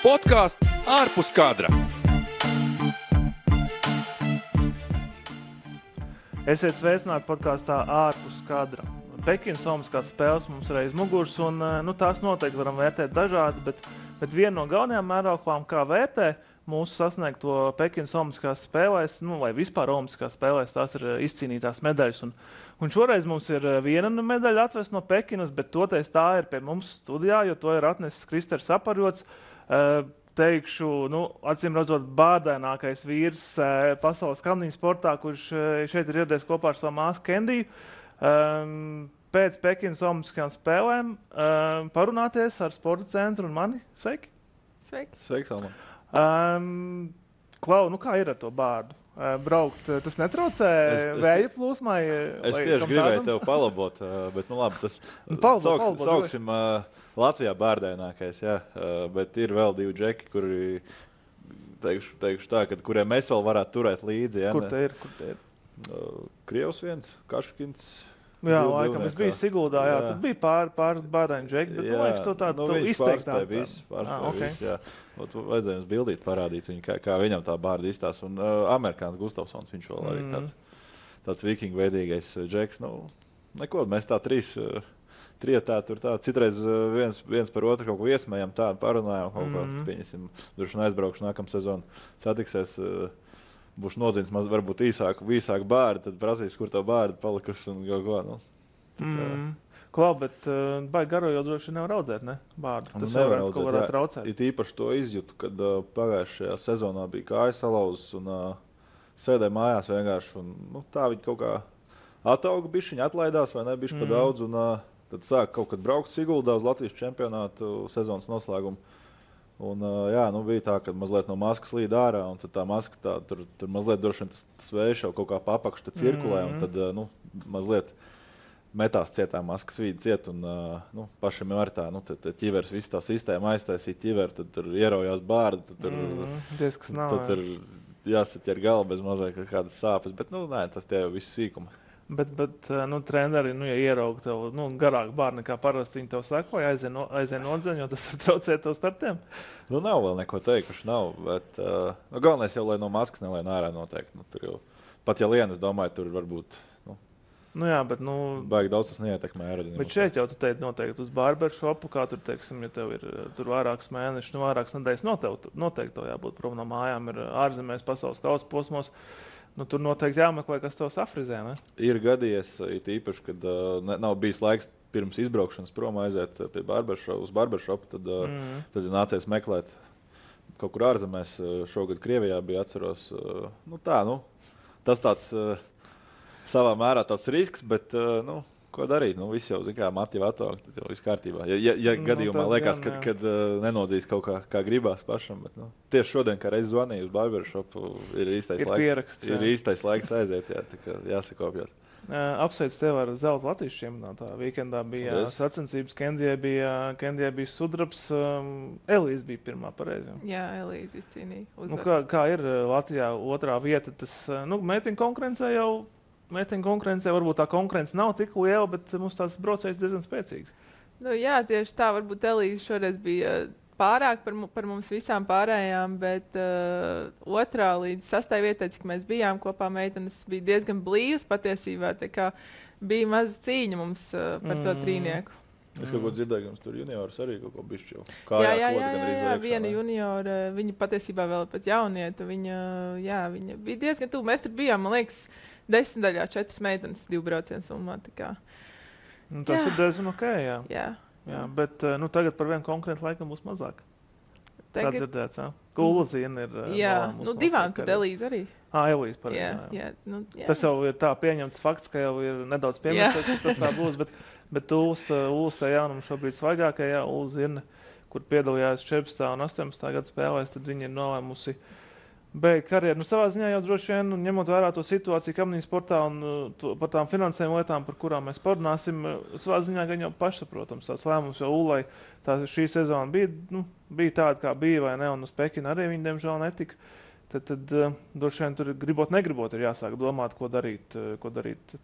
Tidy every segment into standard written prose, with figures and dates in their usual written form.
Podkāsts ārpus kadra. Esiet sveicināti podkāstā ārpus kadra. Pekinas Olimpiskās spēles mums ir aiz muguras, un tās noteikti varam vērtēt dažādi, bet viena no galvenajām mērauklām, kā vērtē mūsu sasniegto Pekinas Olimpiskās spēlēs, vai vispār Olimpiskās spēlēs, tās ir izcīnītās medaļas. Un šoreiz mums ir viena medaļa atvest no Pekinas, bet toties tā ir pie mums studijā, jo to ir atnesis Kristers Aparjots. Teikšu, acīm redzot, bārdēnākais vīrs pasaules kamniņu sportā, kurš šeit ir ieradies kopā ar savu māsu Kendiju. Pēc Pekinas Olimpiskajām spēlēm parunāties ar sporta centru un mani. Sveiki! Sveiki! Sveiks, Alman! Klau, kā ir ar to bārdu? Braukt, tas netraucē vēja plūsmai? Es tieši gribēju tev palabot, bet labi, tas sauksim Latvijā bārdēnākais, jā, bet ir vēl divi džeki, kuri, teikšu tā, kuriem mēs vēl varētu turēt līdzi. Jā, Kur te ir? Krievs viens, Kaškins. Jā, laikam, es biju Siguldā, jā, tad bija pāris bārdēņu džeki, bet liekas, to tādu izteiktāk. Pārspēja viss, jā. Vajadzēja jums bildīt, parādīt viņu, kā viņam tā bārda izstās. Un amerikāns Gustavsons, viņš vēl arī tāds vikingu veidīgais džeks. Neko, mēs tā trietā tur tā, citreiz viens par otru kaut ko iesmējam, tādu parunājam, kaut ko, pieņesim, droši aizbraukšu nākamā sezonu, satiksies, būs nodzins varbūt īsāku bārdu, tad prasīs, kur tā bārda palikusi un kaut ko. Klau, bet baigi garo jau droši nevar audzēt, ne? Bārdu. Tas varētu kaut kādā traucēt. It īpaši to izjūtu, kad pagājušajā sezonā bija kājas salauzes un sēdēja mājās vienkārši. Un, tā viņi kaut kā atauga bišķiņi, atlaidās vai ne bišķi pa daudz. Un tad sāk kaut kad braukt Siguldā uz Latvijas čempionātu sezonas noslēgumu. Un, bija tā, ka mazliet no maskas līd ārā, un tad tā maska tur mazliet droši vien tas vējš jau kaut kā papakš cirkulē, un tad mazliet metās cietā maskas vīdi ciet, un pašam jau ar tā, tad ķivers visu tā sistēma aiztaisīja ķiveru, tad tur ieraujās bārda, tad tur jāsaķer galva bez mazliet kādas sāpes, bet tas tie jau viss sīkumi. Bet treneri, ja ierauga tev garāku bārdu nekā parasti, viņi tev saka, vai aizien nodzeņ, jo tas var traucēt tev startiem? Nav vēl neko teikuši, nav, bet galvenais jau, lai no maskas nelien ārā noteikti. Tur jau, pat ja lien, es domāju, tur varbūt, baigi daudz tas neietekmē aerodinamiku. Bet šeit jau tu teici noteikti uz barbershopu, kā tur, teiksim, ja tev ir tur vairākus mēnešus, vairākas nedēļas noteikti tev jābūt prom no mājām, ir ārzemēs pasaules kausa posmos. Tur noteikti jāmeklē, kas tev safrizē, ne? Ir gadījies, it īpaši, kad nav bijis laiks pirms izbraukšanas prom aiziet pie uz barbershopu, tad nācies meklēt kaut kur ārzemēs. Šogad Krievijā bija, atceros. Tas tāds savā mērā tāds risks, bet ko darīt? Viss jau, mati jau ataugt, tad jau viss kārtībā. Ja gadījumā liekas, kad nenodzīs kaut kā gribās pašam, bet tieši šodien, kā reiz zvanīju uz barbershopu, ir īstais laiks aiziet, tā kā jāsakopjot. Apsveic tev ar zelta Latvijas čempionātā. Vīkendā bija sacensības, Kendijai bija sudrabs, Elīze bija pirmā pareizi. Jā, Elīze izcīnīja. Kā ir Latvijā otrā vieta, tas meitiņu konkurencē varbūt tā konkurence nav tik liela, bet mums tās braucējas diezgan spēcīgas. Jā, tieši tā, varbūt Elīze šoreiz bija pārāk par mums visām pārējām, bet otrā līdz 6. vietai, cik mēs bijām kopā, meitenes bija diezgan blīvas patiesībā, tā kā bija maza cīņa mums par to trīnieku. Es kaut ko dzirdēju, ka mums tur juniors arī kaut ko bišķi jau Jā, viena juniora, viņa patiesībā vēl pat jaunieta, viņa bija diezgan tuvu. Mēs tur bijām, man liekas, 10 daļā 4 meitenes 2 braucienu summā. Tas ir diezgan ok, jā. Jā, bet tagad par vienu konkurentu laikam būs mazāk. Tā dzirdēts, jā? Ulzīna ir... Jā, divām tur Elīze arī. Elīze pareizi, jā. Tas jau ir tā pieņemts fakts, ka jau ir nedaudz piemērs, ka tas tā būs, bet Ulsta jaunumu šobrīd svaigākajā Ulzīna, kur piedalījās 14. un 18. gada spēlēs, tad viņi ir nolēmusi beigt karjeru. Savā ziņā jau droši vien, ņemot vērā to situāciju kamniņu sportā un par tām finansējuma lietām, par kurām mēs parunāsim, savā ziņā gan jau pašsaprotams tāds lēmums, jo Ulai šī sezona bija tāda, kā bija vai ne, un uz Pekinu arī viņi, diemžēl, netika. Tad droši vien tur gribot, negribot ir jāsāk domāt, ko darīt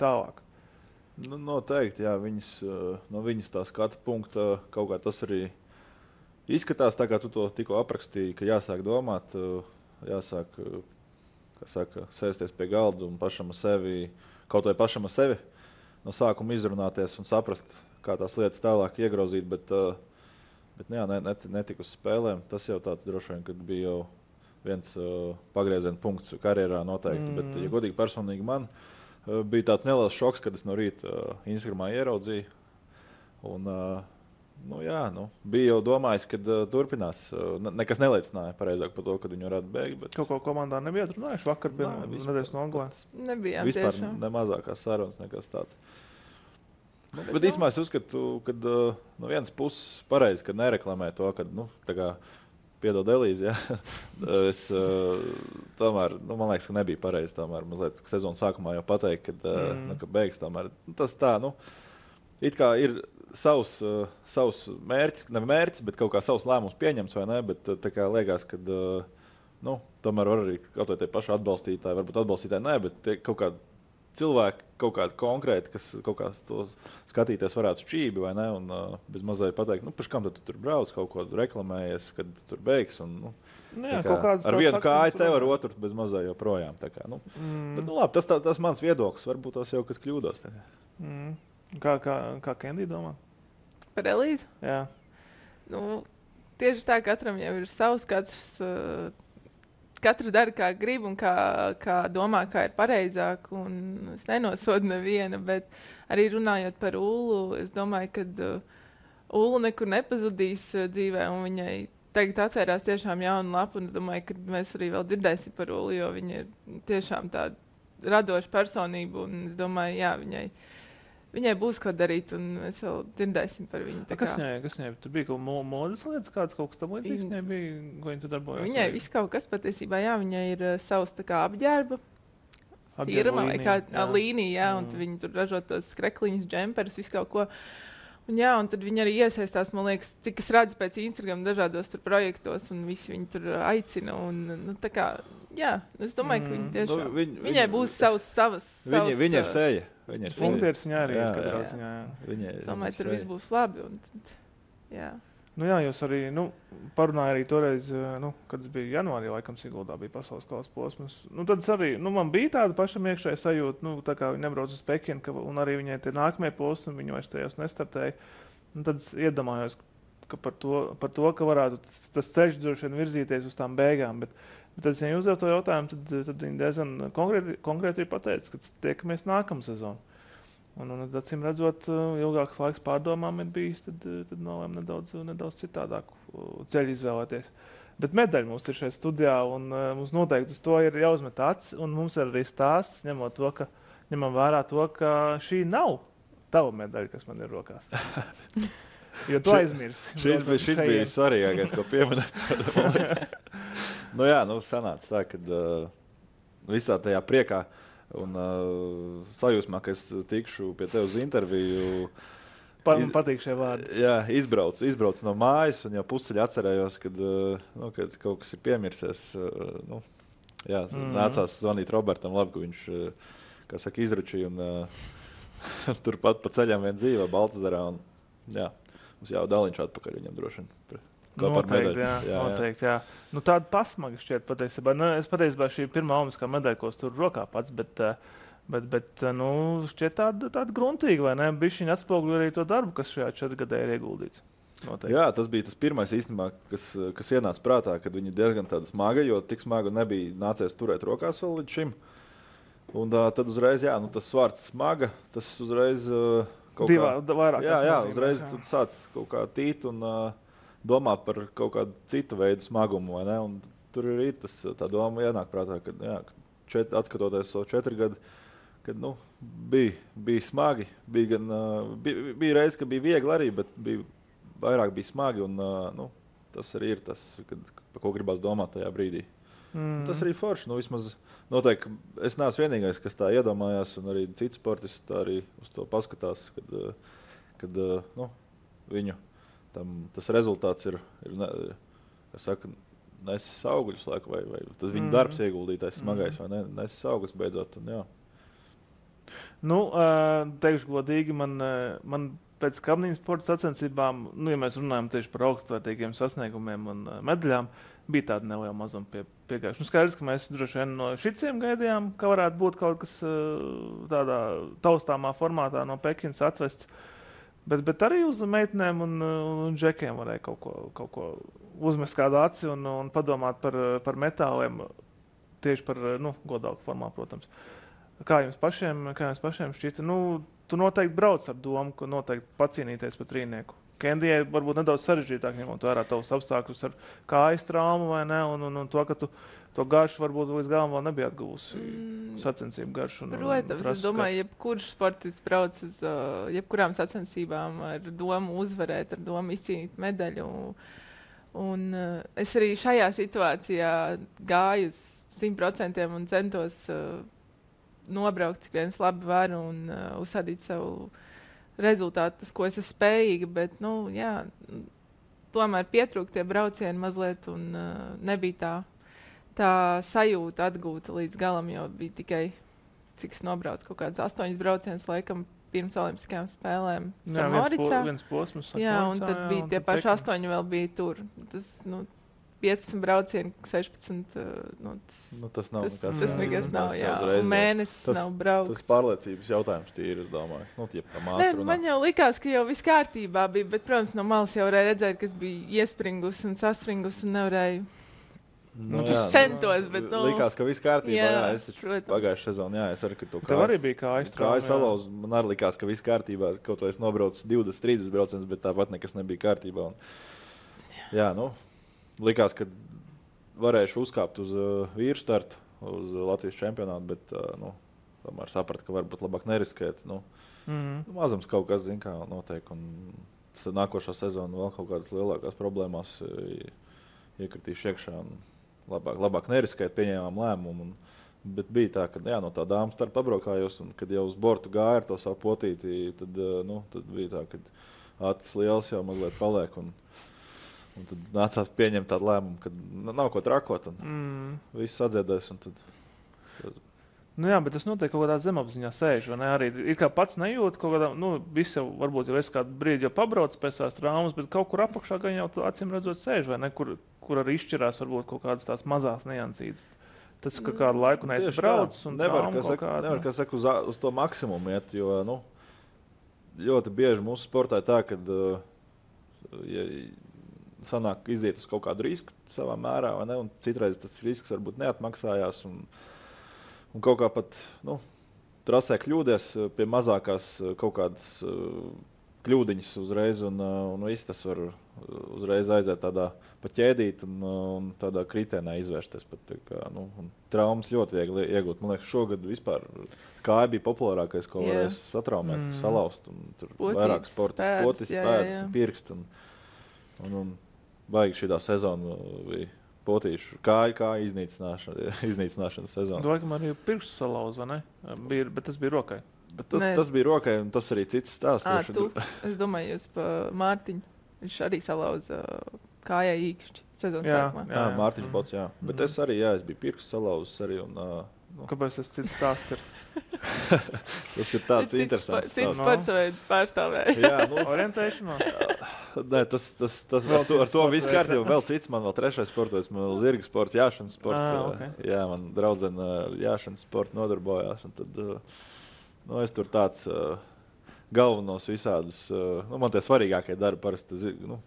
tālāk. Noteikti, jā, no viņas tā skata punkta kaut kā tas arī izskatās tā, kā tu to tikko aprakstīji, ka jāsāk domāt, jāsāk, kā saka, sēsties pie galda un pašam ar sevi, kaut vai pašam ar sevi no sākuma izrunāties un saprast, kā tās lietas tālāk iegrozīt, bet jā, netika uz spēlēm. Tas jau tāds droši vien, kad bija jau viens pagrieziena punkts karjerā noteikti, bet, ja godīgi personīgi man, bija tāds neliels šoks, kad es no rīta Instagramā ieraudzīju. Un, bija jau domājis, ka turpinās. Nekas neliecināja pareizāk par to, kad viņi varētu beigt. Bet... Kaut ko komandā nebija atrunājuši vakar, nedēļas nogalē. Nebijām vispār tiešām. Ne mazākās sarunas, nekas tāds. Bet īstenībā es uzskatu, ka no vienas puses pareizi, ka nereklamē to, ka, tā kā piedod Elīzi, ja? Es tomēr, man liekas, ka nebija pareizi tomēr mazliet sezonas sākumā jau pateikt, ka beigs tomēr. Tas tā, it kā ir savs mērķis, ne mērķis, bet kaut kā savs lēmums pieņemts, vai ne, bet tā kā liekas, ka, tomēr var arī kaut vai tie paši atbalstītāji, varbūt atbalstītāji nē, bet tie kaut kādi cilvēki, kaut kādi konkrēti, kas kaut kā to skatīties varētu šķībi, vai ne, un bez mazai pateikt, pēc kam tu tur brauc, kaut ko reklamējies, kad tu tur beigs, un, ar vienu kāju tev, ar otru bez mazai joprojām, tā kā, Bet, labi, tas mans viedoklis, varbūt tas jau kas kļūdos, tā kā. Kā Kendija domā? Par Elīzu? Jā. Tieši tā, katram jau ir savs, katrs dara, kā grib un kā domā, kā ir pareizāk. Es nenosodu nevienu, bet arī runājot par Ulu, es domāju, ka Ulu nekur nepazudīs dzīvē, un viņai tagad atvērās tiešām jauna lapa, un es domāju, ka mēs arī vēl dzirdēsim par Ulu, jo viņa ir tiešām tāda radoša personība, un es domāju, jā, viņai būs ko darīt, un mēs vēl dzirdēsim par viņu. Kas viņai? Tur bija kaut modas lietas, kaut kas tam līdzīgs viņai bija, ko viņa tur darbojās? Viņai viss kaut kas patiesībā, jā, viņai ir savs tā kā apģērba firma vai kā līnija, un viņi tur ražo tos krekliņus, džemperus, visu kaut ko. Un tad viņi arī iesaistās, man liekas, cik es redzu pēc Instagram dažādos tur projektos, un visi viņi tur aicina, un tā kā, jā, es domāju, ka viņi tiešām, viņai būs savas. Viņa ir seja. Punktieris viņā arī ir katrā ziņā. Es domāju, tur viss būs labi. Jā. Jā, jūs arī parunājāt arī toreiz, kad es biju janvārī, laikam Siguldā bija pasaules kausa posms. Tad arī man bija tāda pašam iekšēja sajūta, tā kā viņi nebrauc uz Pekinu, un arī viņai tie nākamie posmi, viņi vairs tajos nestartēja. Tad es iedomājos, ka par to, ka varētu tas ceļš droši vien virzīties uz tām beigām. Bet tad, ja viņi uzdev to jautājumu, tad viņi diezgan konkrēti ir pateicis, ka tiekamies nākamā sezonu. Un acīm redzot, ilgāks laiks pārdomām ir bijis, tad nolēma nedaudz citādāku ceļu izvēlēties. Bet medaļa mums ir šajā studijā, un mums noteikti uz to ir jāuzmet acis, un mums ir arī stāsts, ņemam vērā to, ka šī nav tava medaļa, kas man ir rokās. Jo tu aizmirsi. Šis bija svarīgākais, ko pieminēt. Sanāca tā, kad visā tajā priekā un sajūsmā, ka es tikšu pie tev uz interviju. Man patīk šie vārdi. Jā, izbraucu no mājas, un jau pusceļā atcerējos, kad kaut kas ir piemirsies. Nācās zvanīt Robertam, labi, ka viņš, kā saka, izručīja, un turpat pa ceļam vien dzīvo Baltazarā. Mums jau daliņš atpakaļ viņam droši vien. Noteikti, jā. Tāda pasmaga šķiet patiesībā. Es patiesībā šī pirmā olimpiskā medaļa, ko es tur rokā pats, bet šķiet tāda gruntīga, vai ne? Bišķiņ atspoguļo arī to darbu, kas šajā 4 gadē ir ieguldīts. Noteikti. Jā, tas bija tas pirmais īstenībā, kas ienāca prātā, kad viņi diezgan tāda smaga, jo tik smaga nebija nācies turēt rokās vēl līdz šim. Un tad uzreiz, tas svārds smaga, tas uzreiz uzreiz tu sāc kaut kā tīt un domāt par kaut kādu citu veidu smagumu, vai ne? Un tur ir tā doma ienāk prātā, ka atskatoties so 4 gadu, kad bija smagi, bija reiz, ka bija viegli arī, bet vairāk bija smagi, un tas arī ir tas, par ko gribās domāt tajā brīdī. Tas arī forši, vismaz noteikti, es neesmu vienīgais, kas tā iedomājās, un arī citi sportisti tā arī uz to paskatās, kad viņu tas rezultāts ir nesis augļus, vai tas viņa darbs ieguldītais smagais, vai nesis augļus beidzot. Un, teikšu godīgi, man pēc kabniņas sporta sacensībām, nu, ja mēs runājam tieši par augstvērtīgiem sasniegumiem un medaļām, bija tāda neliela mazuma piegājuši. Nu, skaidrs, ka mēs droši vien no šitiem gaidījām, ka varētu būt kaut kas tādā taustāmā formātā no Pekinas atvests. Bet arī uz meitenēm un džekiem varēja kaut ko uzmest kādu aci un padomāt par metāliem, tieši par godāku formā, protams. Kā jums pašiem šķita? Nu, tu noteikti brauc ar domu, ka noteikti pacīnīties par trīnieku. Kendijai varbūt nedaudz sarežģītāk, ņemot vērā tavus apstākļus ar kājas traumu vai ne, un to, ka tu to garšu varbūt līdz galam vēl nebija atguvusi sacensību garšu. Protams, es domāju, jebkurš sportists brauc uz jebkurām sacensībām ar domu uzvarēt, ar domu izcīnīt medaļu. Un es arī šajā situācijā gāju uz 100% un centos nobraukt, cik viens labi var un uzsādīt savu rezultātu, uz ko es esmu spējīga, bet, tomēr pietrūka tie braucieni mazliet un nebija tā sajūta atgūta līdz galam, jo bija tikai, cik es nobraucu, kaut kāds 8 braucienus, laikam, pirms Olimpiskajām spēlēm Samoricā. Viens posms. Jā, un tad bija tie paši 8 vēl bija tur. Tas, 15 braucieni, 16. Tas nav tas nekas nav, jā. Un mēnesis nav brauks. Tas pārliecības jautājums tīri, es domāju. Man jau likās, ka jau viss kārtībā bija, bet, protams, no malas jau varēja redzēt, kas bija iespringus un saspringus un nevarēju. Centos, bet, likās, ka viss kārtībā, es taču pagājušajā sezonā, es arī, ka to tev arī bija kājas salauz, man arī likās, ka viss kārtībā, kaut vai es nobraucu 20-30 braucienus, bet tāpat nekas nebija kārtībā. Likās, ka varēšu uzkāpt uz vīru startu, uz Latvijas čempionātu, bet tomēr sapratu, ka varbūt labāk neriskēt. Mazums kaut kas, zin kā, notiek. Un nākošā sezona vēl kaut kādas lielākās problēmās iekritīšu iekšā. Labāk neriskēt, pieņēmām lēmumu. Bet bija tā, ka no tā dāmas starp pabraukājos, un kad jau uz bortu gāja ar to savu potīti, tad bija tā, ka acis liels jau mazliet paliek. Un tad nācās pieņemt tādu lēmumu, ka nav ko trakot. Viss atdziedēs. Jā, bet tas notiek kaut kādā zemapziņā sēž. Arī it kā pats nejūt kaut kādā, viss jau varbūt jau es kādu brīdi jau pabrauc pēc tās traumas, bet kaut kur apakšā gan jau acīm redzot sēž, vai ne? Kur arī izšķirās varbūt kaut kādas tās mazās niansītes. Tas, ka kādu laiku neesi braucis un nevar, kā saka, uz to maksimumu iet, jo, ļoti bieži mūsu sportā tā, kad sanāk iziet uz kaut kādu risku savā mērā, vai ne? Un citreiz tas risks varbūt neatmaksājās un kaut kā pat, trasē kļūdies pie mazākās kaut kādas kļūdiņas uzreiz un viss tas var uzreiz aiziet tādā pa ķēdīt un tādā kritēnā izvērsties. Traumas ļoti viegli iegūt. Man liekas, šogad vispār kāja bija populārākais, ko varēs satraumēt, salauzt. Un tur vairāk sportas, potis, pēdas, pirkst un baigi šitā sezona bija potīšu kā iznīcināšanas sezona. Domāju, ka man arī pirkstu salauz, vai ne? Bet tas bija rokai. Bet tas bija rokai, un tas arī cits stāsts. Es domāju, jūs pa Mārtiņu. Viņš arī salauza kājai īkšķi sezonas sākumā. Jā, Mārtiņš Bots, jā. Bet es arī, es biju pirkstu salauzis arī. Kāpēc tas cits stāsts ir? Tas ir tāds interesants. Cits sportaveidu pārstāvēja. Jā, orientēšanās. Nē, ar to viss kārtībā. Vēl cits, man vēl trešais sportoveids, man vēl zirga sports, jāšanas sports. Okay. Jā, man draudzene jāšanas sportu nodarbojās. Un tad, es tur tāds galvenos visādus, man tie svarīgākie darbi parasti,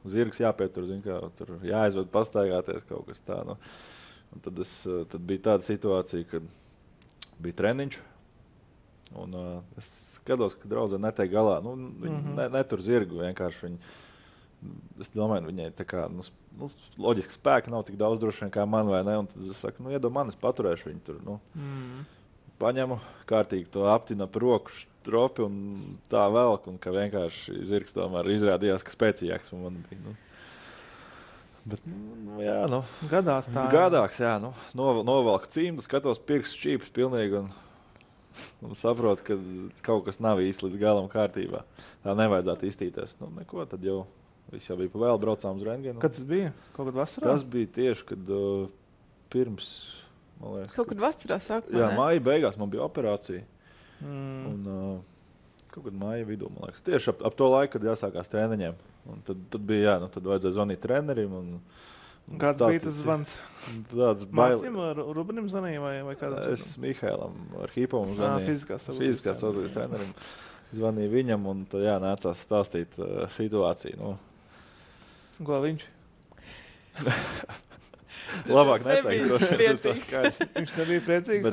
zirgs jāpietur, tur jāaizved pastaigāties kaut kas tā. Un tad bija tāda situācija, kad bija treniņš, un es skatos, ka draudzene netiek galā. Viņi netur zirgu, vienkārši es domāju, viņai tā kā, loģiski spēka nav tik daudz droši vien kā man, vai ne? Un tad es saku, iedod man, es paturēšu viņu tur, paņemu, kārtīgi to aptinu ap roku stropi un tā velk, un ka vienkārši zirgs tomēr izrādījās, ka spēcīgāks man bija, Bet, gadās tā. Gadāks, jā. Novelku cimdu, skatos pirkstu šķīpus pilnīgi un saprotu, ka kaut kas nav īsti līdz galam kārtībā. Tā nevajadzētu iztīties. Neko, tad jau viss jau bija pa vēl, braucām uz rentgenu. Kad tas bija? Kaut kad vasarā? Tas bija tieši, kad pirms, man liekas. Kaut kad vasarā sākumā, jā, māja beigās man bija operācija. Un kaut kad māja vidū, man liekas. Tieši ap to laiku, kad jāsākās treniņiem. Un tad bija, tad vajadzēja zvanīt trenerim. Kāds bija tas zvans? Tāds bail. Mācim Rubenim zvanīja vai kādam? Es Mihailam Arhipovam zvanīju. Fiziskās vadības trenerim. Zvanīju viņam un tad nācās stāstīt situāciju. Ko viņš? Labāk neteikt. Viņš nebija priecīgs?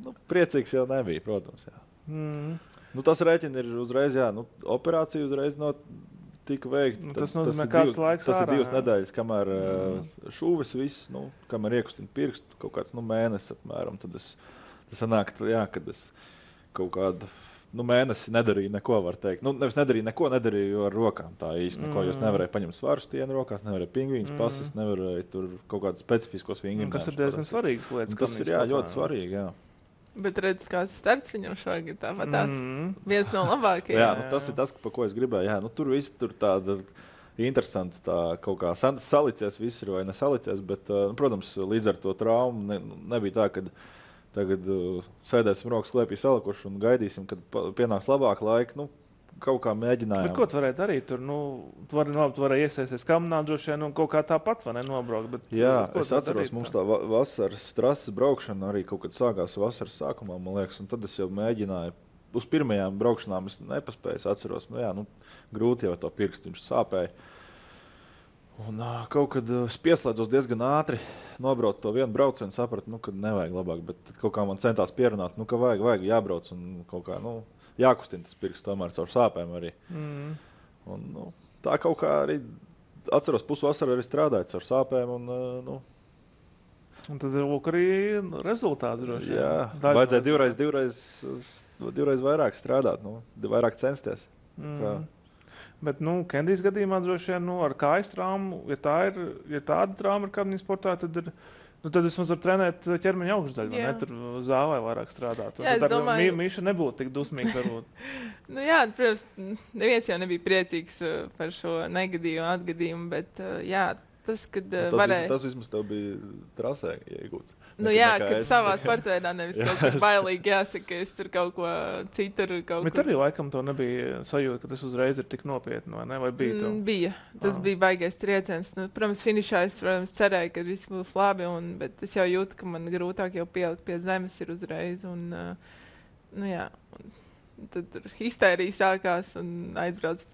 Bet priecīgs jau nebija, protams. Tas rēķina ir uzreiz, operācija uzreiz tika veikta. Tas nozīmē, kāds laiks tas ir 2 nedēļas, kamēr šūves viss, kamēr iekustina pirkstu, kaut kāds mēnesis apmēram. Tad tas sanāk, kad es kaut kādu mēnesi nedarīju neko, var teikt. Nevis nedarīju ar rokām tā īsti neko, jo es nevarēju paņemt svaru stienu rokās, nevarēju pingvīņus pasist, nevarēju tur kaut kādus specifiskos vingrinājumus. Kas ir diezgan svarīgas lietas. Tas ir ļoti svarīgi, jā. Bet redz, kāds starts viņam šogad tāpat tāds viens no labākajiem. Tas ir tas, pa ko es gribēju. Tur viss tur tāda interesanti, tā kaut kā salicies viss ir vai nesalicies, bet, protams, līdz ar to traumu nebija tā, ka tagad sēdēsim rokas klēpī salikuši un gaidīsim, kad pienāks labāk laika. Kaut kā mēģinājām. Bet ko tu varēji darīt? Tur varēja iesaisties kamerā, droši vien kaut kā tāpat nobraukt. Bet, es atceros, mums tā vasaras trases braukšana arī kaut kad sākās vasaras sākumā, man liekas, un tad es jau mēģināju. Uz pirmajām braukšanām es nepaspēju, atceros, grūti jau to pirkstu, viņš sāpēja. Un kaut kad es pieslēdzos diezgan ātri, nobraucu to vienu braucienu, sapratu, ka nevajag labāk, bet kaut kā man centās pierunāt, ka vajag jābrauc un kaut kā, jākustina tas pirksts tomēr caur sāpēm arī. Un, tā kaut kā arī, atceros, pusvasaru arī strādāju caur sāpēm. Un tad ir arī rezultāti droši. Jā, vajadzēja divreiz vairāk strādāt, vairāk censties. Bet, Kendijas gadījumā droši vien ar kājas traumu, ja tāda trauma ir kādā sportā, tad vismaz var trenēt ķermeņa augšdaļu, ne tur zāvē vairāk strādāt. Jā, es domāju, Mīša nebūtu tik dusmīgs varbūt. Protams, neviens jau nebija priecīgs par šo negadījumu atgadījumu, bet tas, kad varēja... Tas vismaz tev bija trasē iegūts. Kad savā sportveidā nevis kaut kā bailīgi jāsaka, ka es tur kaut ko citur Bet arī laikam to nebija sajūta, ka tas uzreiz ir tik nopietni, vai ne? Vai bija to? Bija. Tas bija baigais trieciens. Protams, finišā es cerēju, ka viss būs labi, bet es jau jūtu, ka man grūtāk jau pielikt pie zemes ir uzreiz. Tad histērija sākās un aizbrauc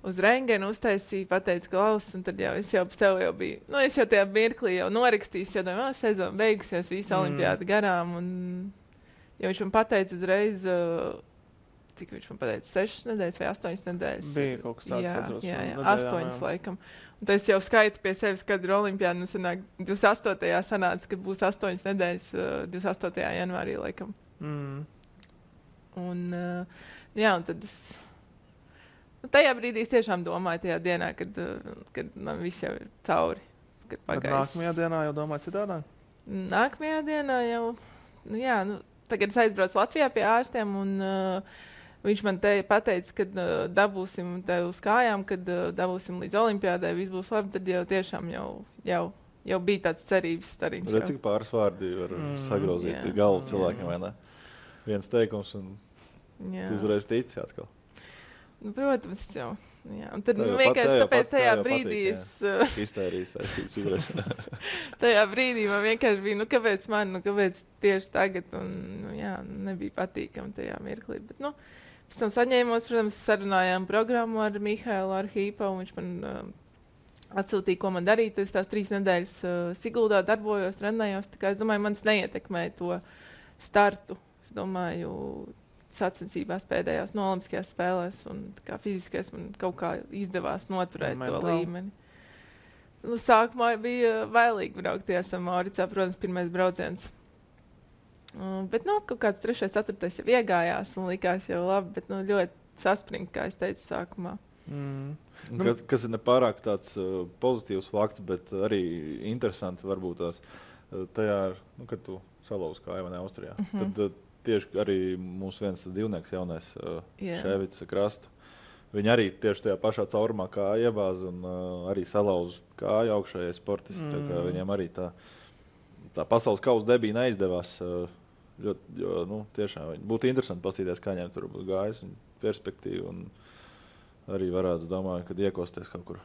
uz rengenu, uztaisīju, pateicu klausus, un tad es jau sev biju, es jau tajā mirklī jau norakstīju, jo domāju, sezona beigusies, visa olimpiāda garām, un jo viņš man pateica uzreiz, cik viņš man pateica, 6 nedēļas vai 8 nedēļas. Bija kaut kas tāds, atceros. Jā, 8 laikam. Un tad es jau skaitu pie sevis, kad ir olimpiāda, sanāk, 28. sanāca, ka būs 8 nedēļas, 28. janvārī laikam. Un tad es... Tajā brīdī es tiešām domāju, tajā dienā, kad man viss jau ir cauri. Bet nākamajā dienā jau domāju citādāk? Nākamajā dienā jau, tagad es aizbraucu Latvijā pie ārstiem, un viņš man pateica, ka dabūsim te uz kājām, kad dabūsim līdz olimpiādai, viss būs labi, tad jau tiešām jau bija tāds cerības stariņš. Redz, cik pāris vārdi var sagrauzīt galvu cilvēkiem, vai ne? Viens teikums, un tu uzreiz tici atkal. Protams, jau. Un tad vienkārši tāpēc tajā brīdī tajā brīdī man vienkārši bija, kāpēc man, kāpēc tieši tagad, un nebija patīkami tajā mirklī. Bet, pēc tam saņēmos, protams, sarunājām programmu ar Mihailu Arhipovu, viņš man atsūtīja, ko man darīt. Es tās 3 nedēļas Siguldā darbojos, trenējos, tā kā es domāju, manis neietekmēja to startu. Es domāju, sacensībās pēdējās no Olimpiskajās spēlēs, un fiziskais man kaut kā izdevās noturēt to līmeni. Sākumā bija bailīgi braukties ar Mauricā, protams, pirmais brauciens. Bet kaut kāds 3., 4. jau iegājās un likās jau labi, bet ļoti saspringt, kā es teicu sākumā. Kas ir nepārāk tāds pozitīvs fakts, bet arī interesanti varbūt tās tajā, kad tu salauzi kāju vai ne Austrijā. Tad tieši arī mūsu viens divnieks jaunais Ševits Krastu. Viņi arī tieši tajā pašā caurumā kā iebāza un arī salauza kāju augšējai sportisti. Viņiem arī tā pasaules kausa debija neizdevās Jo, tiešām būtu interesanti paskatīties, kā viņiem tur būtu gājis un perspektīva. Un arī varētu, domāju, kad iekosties kaut kur.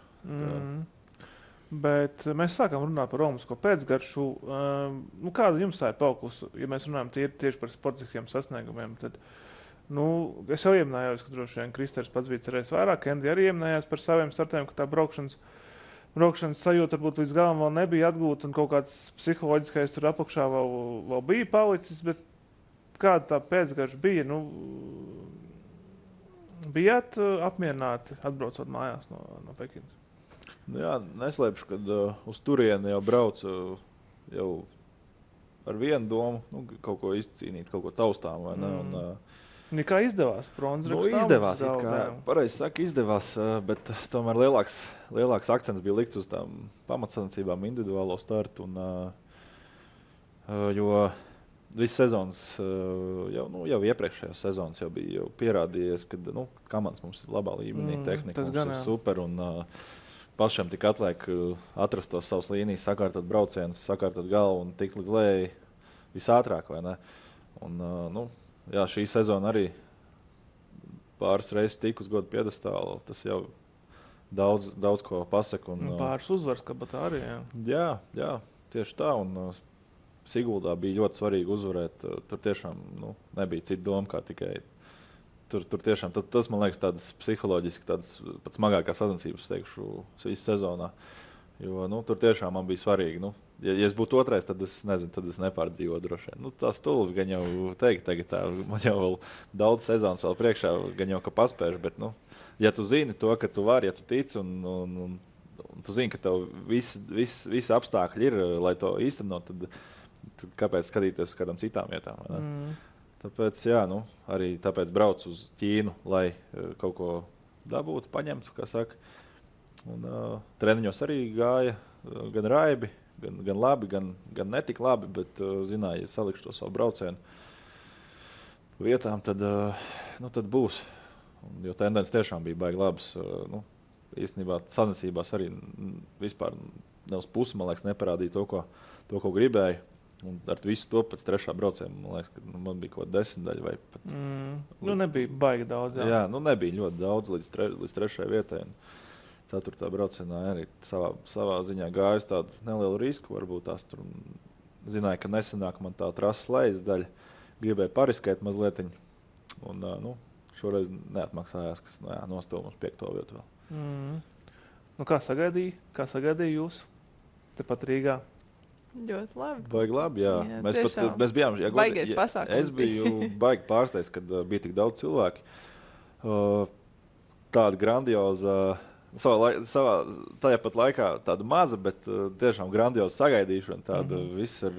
Bet mēs sākam runāt par romisko pēcgaršu. Kāda jums tā ir palikusi? Ja mēs runājam tieši par sportiskiem sasniegumiem, tad es jau ieminējos, ka droši vien Kristers pats bija cerējis vairāk. Kendi arī ieminējās par saviem startiem, ka tā braukšanas sajūta varbūt līdz galam vēl nebija atgūta un kaut kāds psiholoģiskais tur apakšā vēl bija palicis. Bet kāda tā pēcgarša bija? Bijāt apmierināti atbraucot mājās no Pekinas? Jā, neslēpšu, kad uz turieni jau braucu jau ar vienu domu, kaut ko izcīnīt, kaut ko taustām, vai ne? Kā izdevās? Izdevās, pareizi saka, izdevās, bet tomēr lielāks akcents bija likts uz tām pamatsacensībām, individuālo startu, jo viss sezonas, jau iepriekšējās sezonas jau bija pierādījies, ka komandas mums ir labā līmenī, tehnika mums ir super, un pašiem tik atliek atrast tos savus līnijas, sakārtot braucienus, sakārtot galvu un tikt līdz lejai visātrāk, vai ne? Un, šī sezona arī pāris reizes tik uz godu piedestālu, tas jau daudz ko pasaka. Pāris uzvars, kā tā arī, jā. Jā, tieši tā, un Siguldā bija ļoti svarīgi uzvarēt, tur tiešām nebija cita doma, kā tikai Tur tiešām, tas, man liekas, tādas psiholoģiski tādas pat smagākās sacensības, teikšu, visu sezonā. Jo, tur tiešām man bija svarīgi. Ja es būtu otrais, tad es nezinu, tad es nepārdzīvotu droši vien. Tā stulbi gan jau teikt, tagad tā, man jau vēl daudz sezonas vēl priekšā, gan jau, ka paspēšu, bet, ja tu zini to, ka tu vari, ja tu tici un tu zini, ka tev visi apstākļi ir, lai to īstenot, tad kāpēc skatīties uz kādām citām vietām, vai ne? Tāpēc, arī tāpēc braucu uz Ķīnu, lai kaut ko dabūtu, paņemtu, kā saka. Un treniņos arī gāja gan raibi, gan labi, gan netik labi, bet zināju, ja salikšu to savu braucienu vietām, tad būs. Jo tendence tiešām bija baigi labas. Īstenībā sacensībās arī vispār ne uz pusi, man liekas, neparādīja to, ko gribēju. Un ar visu to pēc trešā brauciena, man liekas, ka man bija kaut kāda 10 daļa vai pat... nebija baigi daudz, jā. Jā, nebija ļoti daudz līdz trešajai vietai. Ceturtā braucienā arī savā ziņā gāju tādu nelielu risku, varbūt tās tur zināju, ka nesenāk man tā trases lejas daļa, gribēju pariskēt mazlietiņu. Un, šoreiz neatmaksājās, kas nostāv mums 5. vietu vēl. Kā sagaidīja jūs tepat Rīgā? Ļoti labi. Baigi labi, jā. Mēs bijām... Baigais pasākums. Es biju baigi pārsteigts, kad bija tik daudz cilvēki. Tāda grandioza, tajā pat laikā tāda maza, bet tiešām grandioza sagaidīšana. Tāda viss ar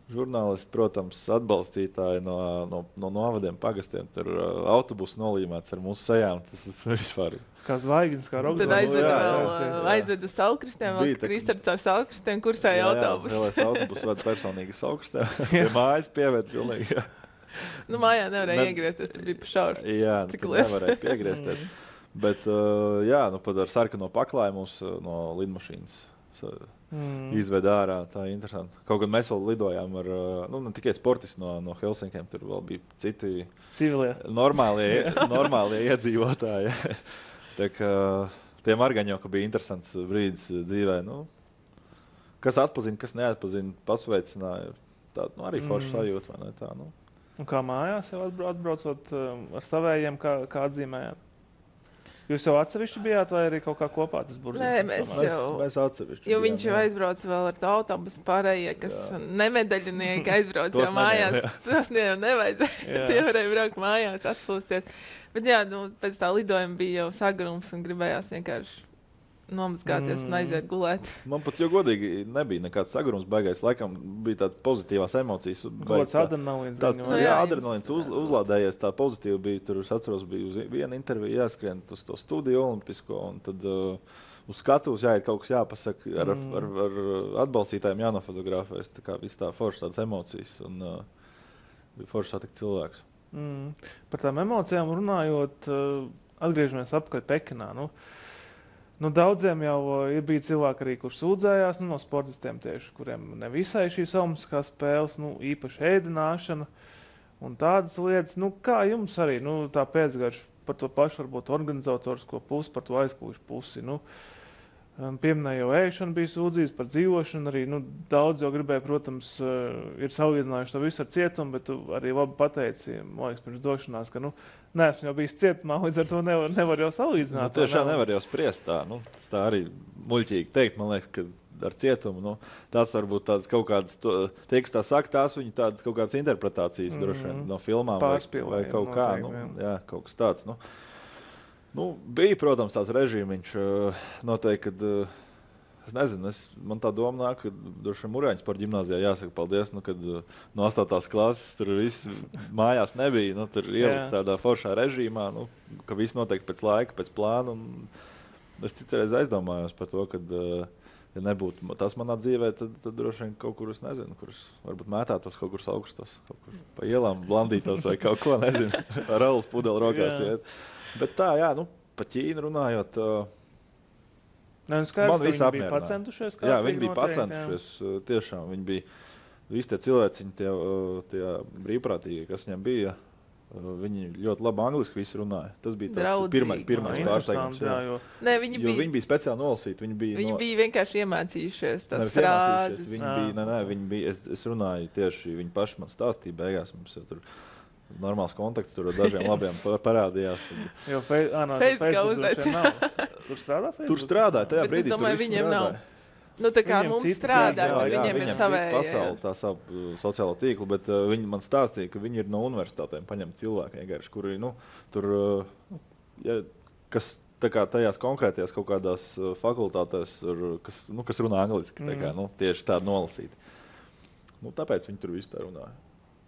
žurnālisti, protams, atbalstītāji no novadiem, pagastiem. Tur autobusu nolīmēts ar mūsu sejām. Tas vispār... Kā zvaigznes, kā rokzvaigznes. Tad aizvedu Saulkristiem, vēl Kristers ar Saulkristiem, kursēja autobusu. Jā, vēlēs autobusu vada personīgi Saulkristiem. Pie mājas pievērt pilnīgi. Mājā nevarēja iegriezties, tur bija pa šauru. Jā, tur nevarēja piegriezties. Bet, pat ar sarkano paklāju mūs no lidmašīnas izved ārā. Tā ir interesanti. Kaut gan mēs vēl lidojām ar, ne tikai sportisti no Helsinkiem, tur vēl bija citi civilie, normālie iedzīvotāji. Tā kā tiem arī gan jau, ka bija interesants brīdis dzīvē. Kas atpazina, kas neatpazina, pasveicināja. Tāda arī forša sajūta, vai ne tā? Un kā mājās jau atbraucot ar savējiem, kā atzīmējāt? Jūs jau atsevišķi bijāt vai arī kaut kā kopā tas burziņš? Nē, mēs atsevišķi. Jo viņš jau aizbrauc vēl ar to autobusu pārējie, kas nemedaļinieki aizbrauc jau mājās. Tas nevajadzēja. Tie varēja braukt mājās, atpūsties. Bet pēc tā lidojuma bija jau sagrums un gribējās vienkārši nomazgāties un aiziet gulēt. Man pat jau godīgi nebija nekāds sagrums baigais. Laikam bija tādas pozitīvās emocijas. Gods adrenalīns. Adrenalīns uzlādējies. Tā pozitīva bija. Tur es atceros, bija uz vienu interviju jāskrien uz to studiju olimpisko. Un tad uz skatuves jāiet kaut kas jāpasaka. Ar atbalstītājiem jānofotografēs. Tā kā viss tā forša tādas emocijas. Un bija forši satikt cilvēks. Par tām emocijām runājot, atgriežamies apkārt Pekinā. Nu, daudziem jau bija cilvēki arī, kurš sūdzējās no sportistiem tieši, kuriem nevisai šīs olimpiskās spēles, īpaši ēdināšana un tādas lietas. Kā jums arī tā pēcgarša par to pašu varbūt organizatorisko pusi, par to aizkulisku pusi? Pieminēja jau ēšana bija sūdzības par dzīvošanu, arī daudz jau gribēja, protams, ir salīdzinājuši to visu ar cietumu, bet tu arī labi pateici, man liekas, pirms došanās, ka neesmu jau bijis cietumā, līdz ar to nevar jau salīdzināt. Tiešām nevar jau spriest tā, tā arī muļķīgi teikt, man liekas, ka ar cietumu, tās varbūt tādas kaut kādas, tie, kas tā saka, tās viņi tādas kaut kādas interpretācijas droši vien no filmām vai kaut kā, jā, kaut kas tāds, bija, protams, tās režīmiņš. Noteikti, kad es nezinu, man tā doma nāk, ka droši vien Murāņu sporta ģimnāzijā jāsaka paldies, kad no 8. klases tur viss mājās nebija, tur ielikts tādā foršā režīmā, ka viss noteikti pēc laika, pēc plāna. Es citreiz aizdomājos par to, ka, ja nebūtu tas manā dzīvē, tad droši vien kaut kur, es nezinu, kurus varbūt mētātos kaut kur augstos, kaut kur pa ielām blandītos vai kaut ko, nezinu, ar raulas pudeli rokās iet. Bet tā, jā, pa Ķīnu runājot, man viss bija pacentušies. Jā, viņi bija pacentušies, tiešām. Viņi bija, visi tie cilvēciņi, tie brīvprātīgi, kas viņiem bija, viņi ļoti labi angliski visi runāja. Tas bija tāds pirmais pārsteigums. Viņi bija speciāli nolasīti. Viņi bija vienkārši iemācījušies tās frāzes. Es runāju tieši, viņi paši man stāstīja beigās. Mums jau tur normāls kontakts tur ar dažiem labiem parādījās. Jo Facebook tur strādā? Tur strādāja, tajā brīdī tur viss strādāja. Tā kā mums strādā, viņiem ir savēja. Pasauli, tā savu sociālo tīklu, bet viņi man stāstīja, ka viņi ir no universitātēm paņemt cilvēki vienkārši, kuri, tur, kas tā kā tajās konkrētajās kaut kādās fakultātēs, kas runā angliski, tā kā, tieši tādi nolasīti. Tāpēc viņi tur visu tā runāja.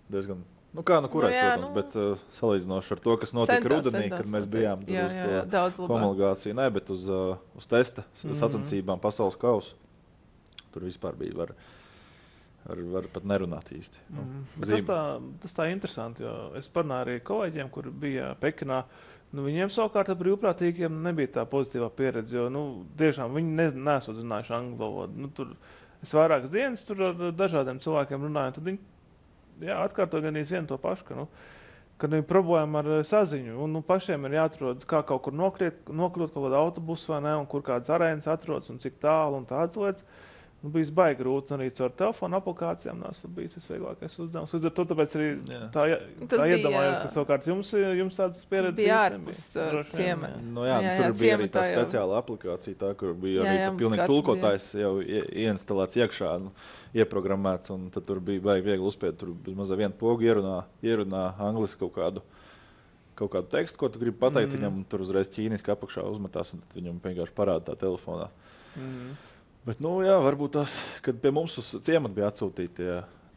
Diezgan. Protams, bet salīdzinoši ar to, kas notika rudenī, kad mēs bijām uz to homologāciju, bet uz testa sacensībām pasaules kausu. Tur vispār bija var pat nerunāt īsti. Tas tā interesanti, jo es parunāju arī kolēģiem, kur bija Pekinā. Viņiem savukārt ar brīvprātīgiem nebija tā pozitīvā pieredze, jo tiešām viņi nesot zinājuši angļu valodu. Es vairākas dienas tur ar dažādiem cilvēkiem runāju, tad viņi atkārto gan vienu to pašu, ka ir problēma ar saziņu. Un pašiem ir jāatrod, kā kaut kur nokļūt kaut kādā autobusu vai ne, un kur kādas arēnas atrodas un cik tālu un tādas lietas. Bija baigi grūti, un arī caur telefonu aplikācijām nesmu bijis tas vieglākais uzdevums. Līdz ar to tāpēc arī tā iedomājos, ka savukārt jums tādas pieredzes bija ārpus ciemata. Tur bija arī tā speciāla aplikācija, tā, kur bija arī pilnīgi tulkotājs jau ieinstalēts iekšā, ieprogrammēts, un tad tur bija baigi viegli uzspiet, tur bezmaz vienu pogu ierunā angliski kaut kādu tekstu, ko tu gribi pateikt viņam, un tur uzreiz ķīniski apakšā uzmetās, un tad viņam vienkārši parāda tā telefonā. Bet, varbūt tās, kad pie mums uz ciematu bija atsūtīti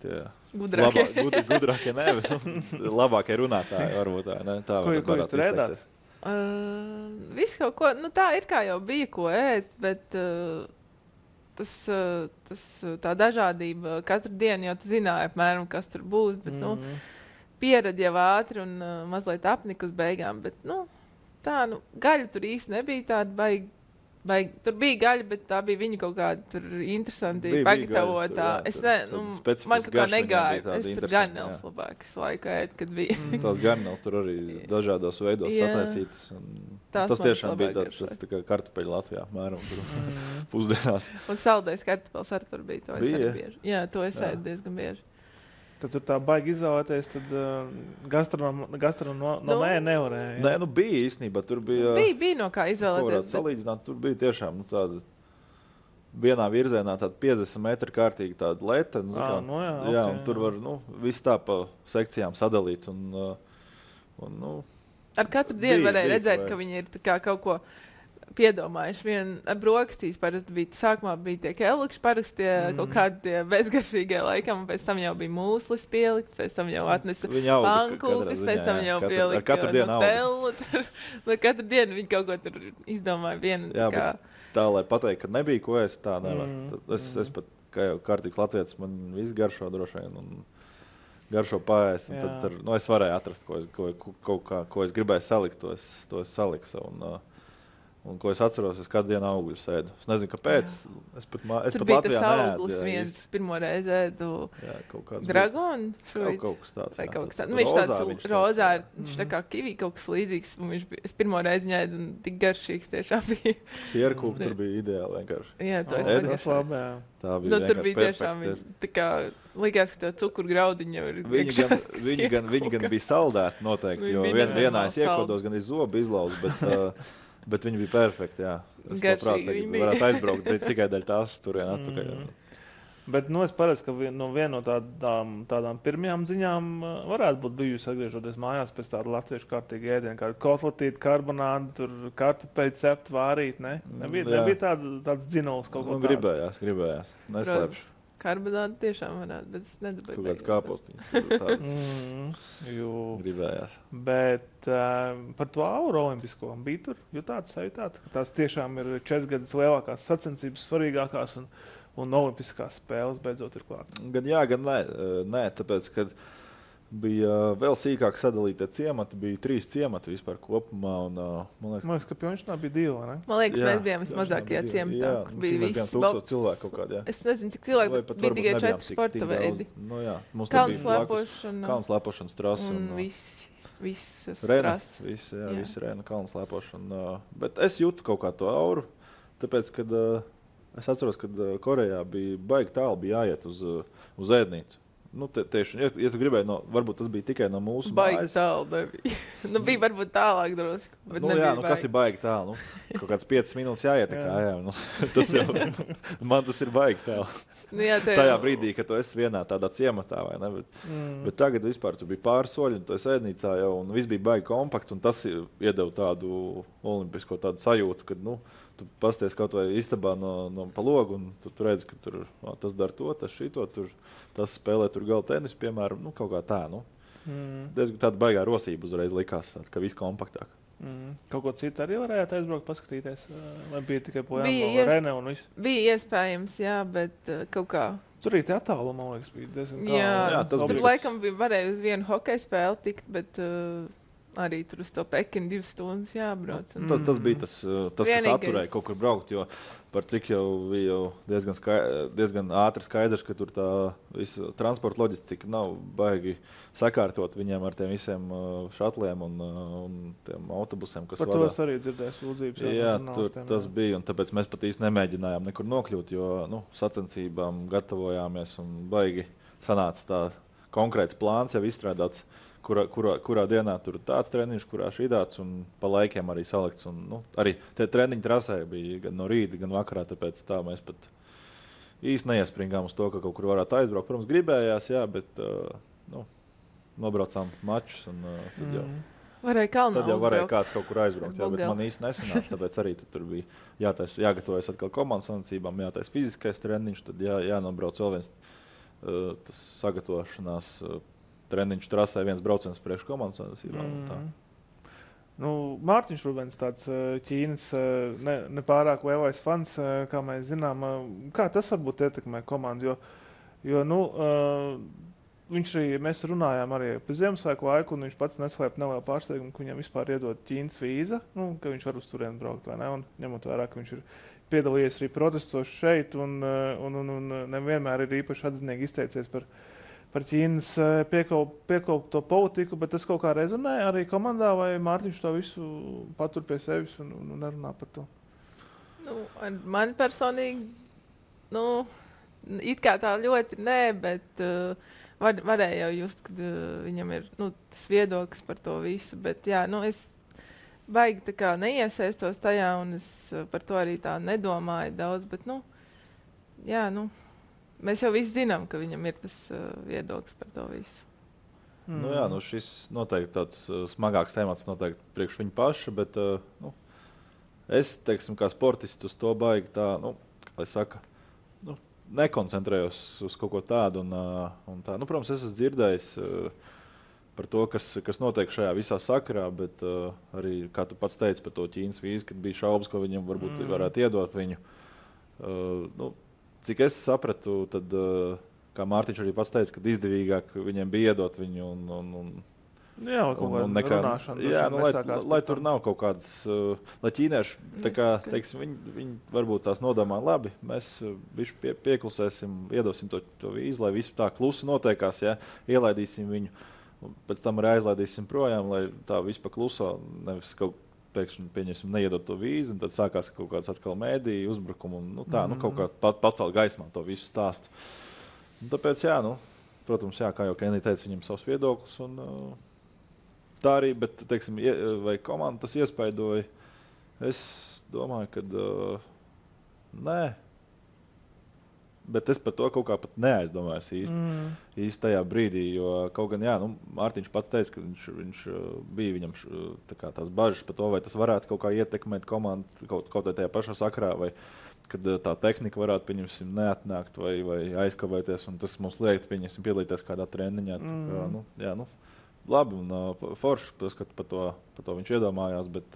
tie gudrākie, labākie runātāji, varbūt tā, ne? Tā ko jūs tur ēdāt? Viss kaut ko, tā ir kā jau bija ko ēst, bet tā dažādība katru dienu jau tu zināji apmēram, kas tur būs, bet, pieredzi jau ātri un mazliet apnika uz beigām, bet, gaļa tur īsti nebija tāda baigi. Tur bija gaļa, bet tā bija viņa kaut kāda tur interesanti pagatavotā. Man kaut kā negāja. Es tur garnēls labāk laiku ēd, kad bija. Tās garnēls tur arī dažādos veidos sataisītas. Tas tiešām bija tāds tā kā kartupeļu Latvijā, mēram tur pusdienās. Un saldais kartupels arī tur bija. To es arī bieži. Jā, to es ēdu diezgan bieži. Tad tur tā baigi izvēlēties, tad gastronomē nevarēja. Nē, bija īstenībā, tur bija... Bija no kā izvēlēties. Salīdzināt, tur bija tiešām tāda vienā virzienā tāda 50 metru kārtīgi tāda leta. Un tur var viss tā pa sekcijām sadalīts. Ar katru dienu varēja redzēt, ka viņi ir kā kaut ko piedomājuši. Ar brokastīs parasti bija, sākumā bija tie kelukši, parasti kaut kādi bezgaršīgie laikam, un pēc tam jau bija mūslis pielikts, pēc tam jau atnesa pankūkas, pēc tam jau pielika nutelu. Katru dienu viņi kaut ko tur izdomāja vienu. Tā, lai pateikt, ka nebija ko ēst, tā nevar. Es pat, kā jau kārtīgs latvietis, man viss garšo droši vien, un garšo paēst, un tad es varēju atrast, ko es gribēju salikt, to es saliku. Un, ko es atceros, es kādu dienu augļus ēdu. Es nezinu, kāpēc. Es pat bija Latvijā tas neēdu. auglis viens, es pirmo reizi ēdu dragonu fruit. Kaut kas tāds. Vai kaut kas tāds. Nu, viņš tāds rozā, viņš tā kā kivī kaut kas līdzīgs. Es pirmo reizi viņu ēdu un tik garšīgs tiešām bija. Sierkūpa tur bija ideāli vienkārši. Jā, to es vienkārši labi. Tā bija tur bija tiešām, tā kā likās, ka tev cukuru jau ir. Viņi gan bija saldēti noteikti, jo vienā es iekodos gan iz zobu izlauzu, bet viņi bija perfekti, jā. Es labprāt varētu aizbraukt tikai daļ tās turien atpakaļ. Bet es paredzu, ka viena no tādām pirmajām ziņām varētu būt bijusi atgriežoties mājās pēc tāda latviešu kārtīga ēdiena, kāda kotletīta, karbonāda, tur kartupeļu cept, vārīt, ne? Nebija tāds dzinuls kaut ko tādu. Gribējās. Neslēpšu. Karbonāda tiešām varētu, bet es nedabēju. Kaut kāds kāpostiņas. Gribējās. Bet par to auru olimpisko bija tur, jūtāts, sajūtāt, ka tās tiešām ir 4 gadus lielākās sacensības, svarīgākās un olimpiskās spēles beidzot ir klāt. Gan jā, gan nē, tāpēc, kad bija vēl sīkāk sadalīti ciemati, bija 3 ciemati vispār kopumā. Un, man liekas, ka Pjončnā bija 2, ne? Man liekas, mēs bijām vismazākajā ciematā. Bija visi 1000 cilvēku kaut kādā. Es nezinu, cik cilvēku bija tikai 4 sporta veidi. Nu, jā, mums kalnslēpošana trasa. Un visas trases. Visi rēna kalnslēpošana. Bet es jūtu kaut kā to auru, tāpēc, kad es atceros, kad Korejā bija baigi tālu, bija jāiet uz ēdnīcu. Nu, tieši, ja tu gribēji, varbūt tas bija tikai no mūsu baigi mājas. Baigi tālu nebija. Bija varbūt tālāk drusku, bet nebija baigi. Kas ir baigi tālu? Kaut kāds 5 minūtes jāiet tā kā, man tas ir baigi tālu. Tajā brīdī, kad tu esi vienā tādā ciematā, vai ne? Bet tagad vispār tu bija pāris soļi, un tu esi ēdnīcā jau, un viss bija baigi kompakts, un tas iedeva tādu olimpisko tādu sajūtu, kad, tu pasties kaut vai istabā no pa logu, un tu redzi, ka tur tas dara to, tas šito, tas spēlē tur gala tenisu, piemēram, kaut kā tā, Diezgan tāda baigā rosība uzreiz likās, ka viss kompaktāk. Kaut ko citu arī varējāt aizbraukt, paskatīties, vai bija tikai pojām Rene un viss? Bija iespējams, jā, bet kaut kā. Tur arī tie attālumi, man liekas, bija diezgan tālu. Jā, tur laikam varēja uz vienu hokeja spēli tikt, bet arī tur uz to Pekinu 2 stundas jābrauc. Tas bija tas kas atturēja kaut kur braukt, jo par cik jau bija diezgan ātri skaidrs, ka tur tā visa transporta loģistika nav baigi sakārtot viņiem ar tiem visiem šatliem un tiem autobusiem, kas vadā. Par to es arī dzirdēju sūdzības. Jā, tas bija, un tāpēc mēs pat īsti nemēģinājām nekur nokļūt, jo sacensībām gatavojāmies un baigi sanāca tā konkrēts plāns jau izstrādāts, kurā dienā tur tāds treniņš, kurā šīdāts un pa laikiem arī salikts. Un, arī tie treniņi trasē bija gan no rīta, gan vakarā, tāpēc tā mēs pat īsti neiespringām uz to, ka kaut kur varētu aizbraukt. Protams, gribējās, jā, bet nobraucām mačus un tad jau. Tad jau varēja kāds kaut kur aizbraukt, jā, bet man īsti nesanāca, tāpēc arī tur bija jāgatavojas atkal komandas sanācībām, jātais fiziskais treniņš, tad jānobrauc vēl viens tas sagatavošanās treniņš trasē, viens brauciens priekš komandas sanācībām. Mārtiņš Rubens, tāds Ķīnas nepārāk lielais fans, kā mēs zinām, kā tas varbūt ietekmē komandu, jo viņš arī, mēs runājām arī par Ziemassvētku laiku, un viņš pats neslēp nelielu pārsteigumu, ka viņam vispār iedod Ķīnas vīza, ka viņš var uz turieni braukt, vai ne, un ņemot vērā, ka viņš ir piedalījies arī protestos šeit, un nevienmēr ir īpaši atzinīgi izteicies par Ķīnas piekoputo politiku, bet tas kaut kā rezonē arī komandā, vai Mārtiņš to visu patur pie sevis un nerunā par to? Man personīgi, it kā tā ļoti nē, bet varēja jau just, kad viņam ir tas viedoklis par to visu, bet jā, es baigi tā kā neiesaistos tajā, un es par to arī tā nedomāju daudz, bet mēs jau visi zinām, ka viņam ir tas viedoklis par to visu. Jā, šis noteikti tāds smagāks temats noteikti priekš viņa paša, bet es, teiksim, kā sportists uz to baigi tā, kā lai saka, nekoncentrējos uz kaut ko tādu un tā. Protams, es esmu dzirdējis par to, kas notiek šajā visā sakarā, bet arī, kā tu pats teici par to Ķīnas vīzu, kad bija šaubas, ko viņam varbūt varētu iedot viņu. Cik es sapratu, tad, kā Mārtiņš arī pats teica, kad izdevīgāk viņiem bija iedot viņu un Jā, un runāšana. Jā, lai tur nav kaut kādas, lai ķīnieši, tā kā, teiksim, viņi varbūt tās nodomā labi, mēs bišķi pieklusēsim, iedosim to vīzu, lai viss tā klusi notiekās, ja, ielaidīsim viņu, un pēc tam arī aizlaidīsim projām, lai tā viss pa kluso, nevis kaut pēkšņi pieņemsim neiedot to vīzu, un tad sākās kaut kāds atkal mēdīju uzbrukumu, un kaut kā pacelt gaismā to visu stāstu. Un tāpēc, jā, protams, jā, kā jau Kenī teica, viņam savs viedoklis, un tā arī, bet, teiksim, vai komanda tas iespaidoja, es domāju, ka nē, bet es par to kaut kā pat neaizdomājos īsti tajā brīdī, jo kaut gan, jā, Mārtiņš pats teica, ka viņš bija viņam tās bažas par to, vai tas varētu kaut kā ietekmēt komandu kaut tajā pašā sakrā, vai kad tā tehnika varētu, pieņemsim, neatnākt vai aizkavēties, un tas mums liekt, pieņemsim, piedalīties kādā treniņā. Labi, un forši, ka par to viņš iedomājās, bet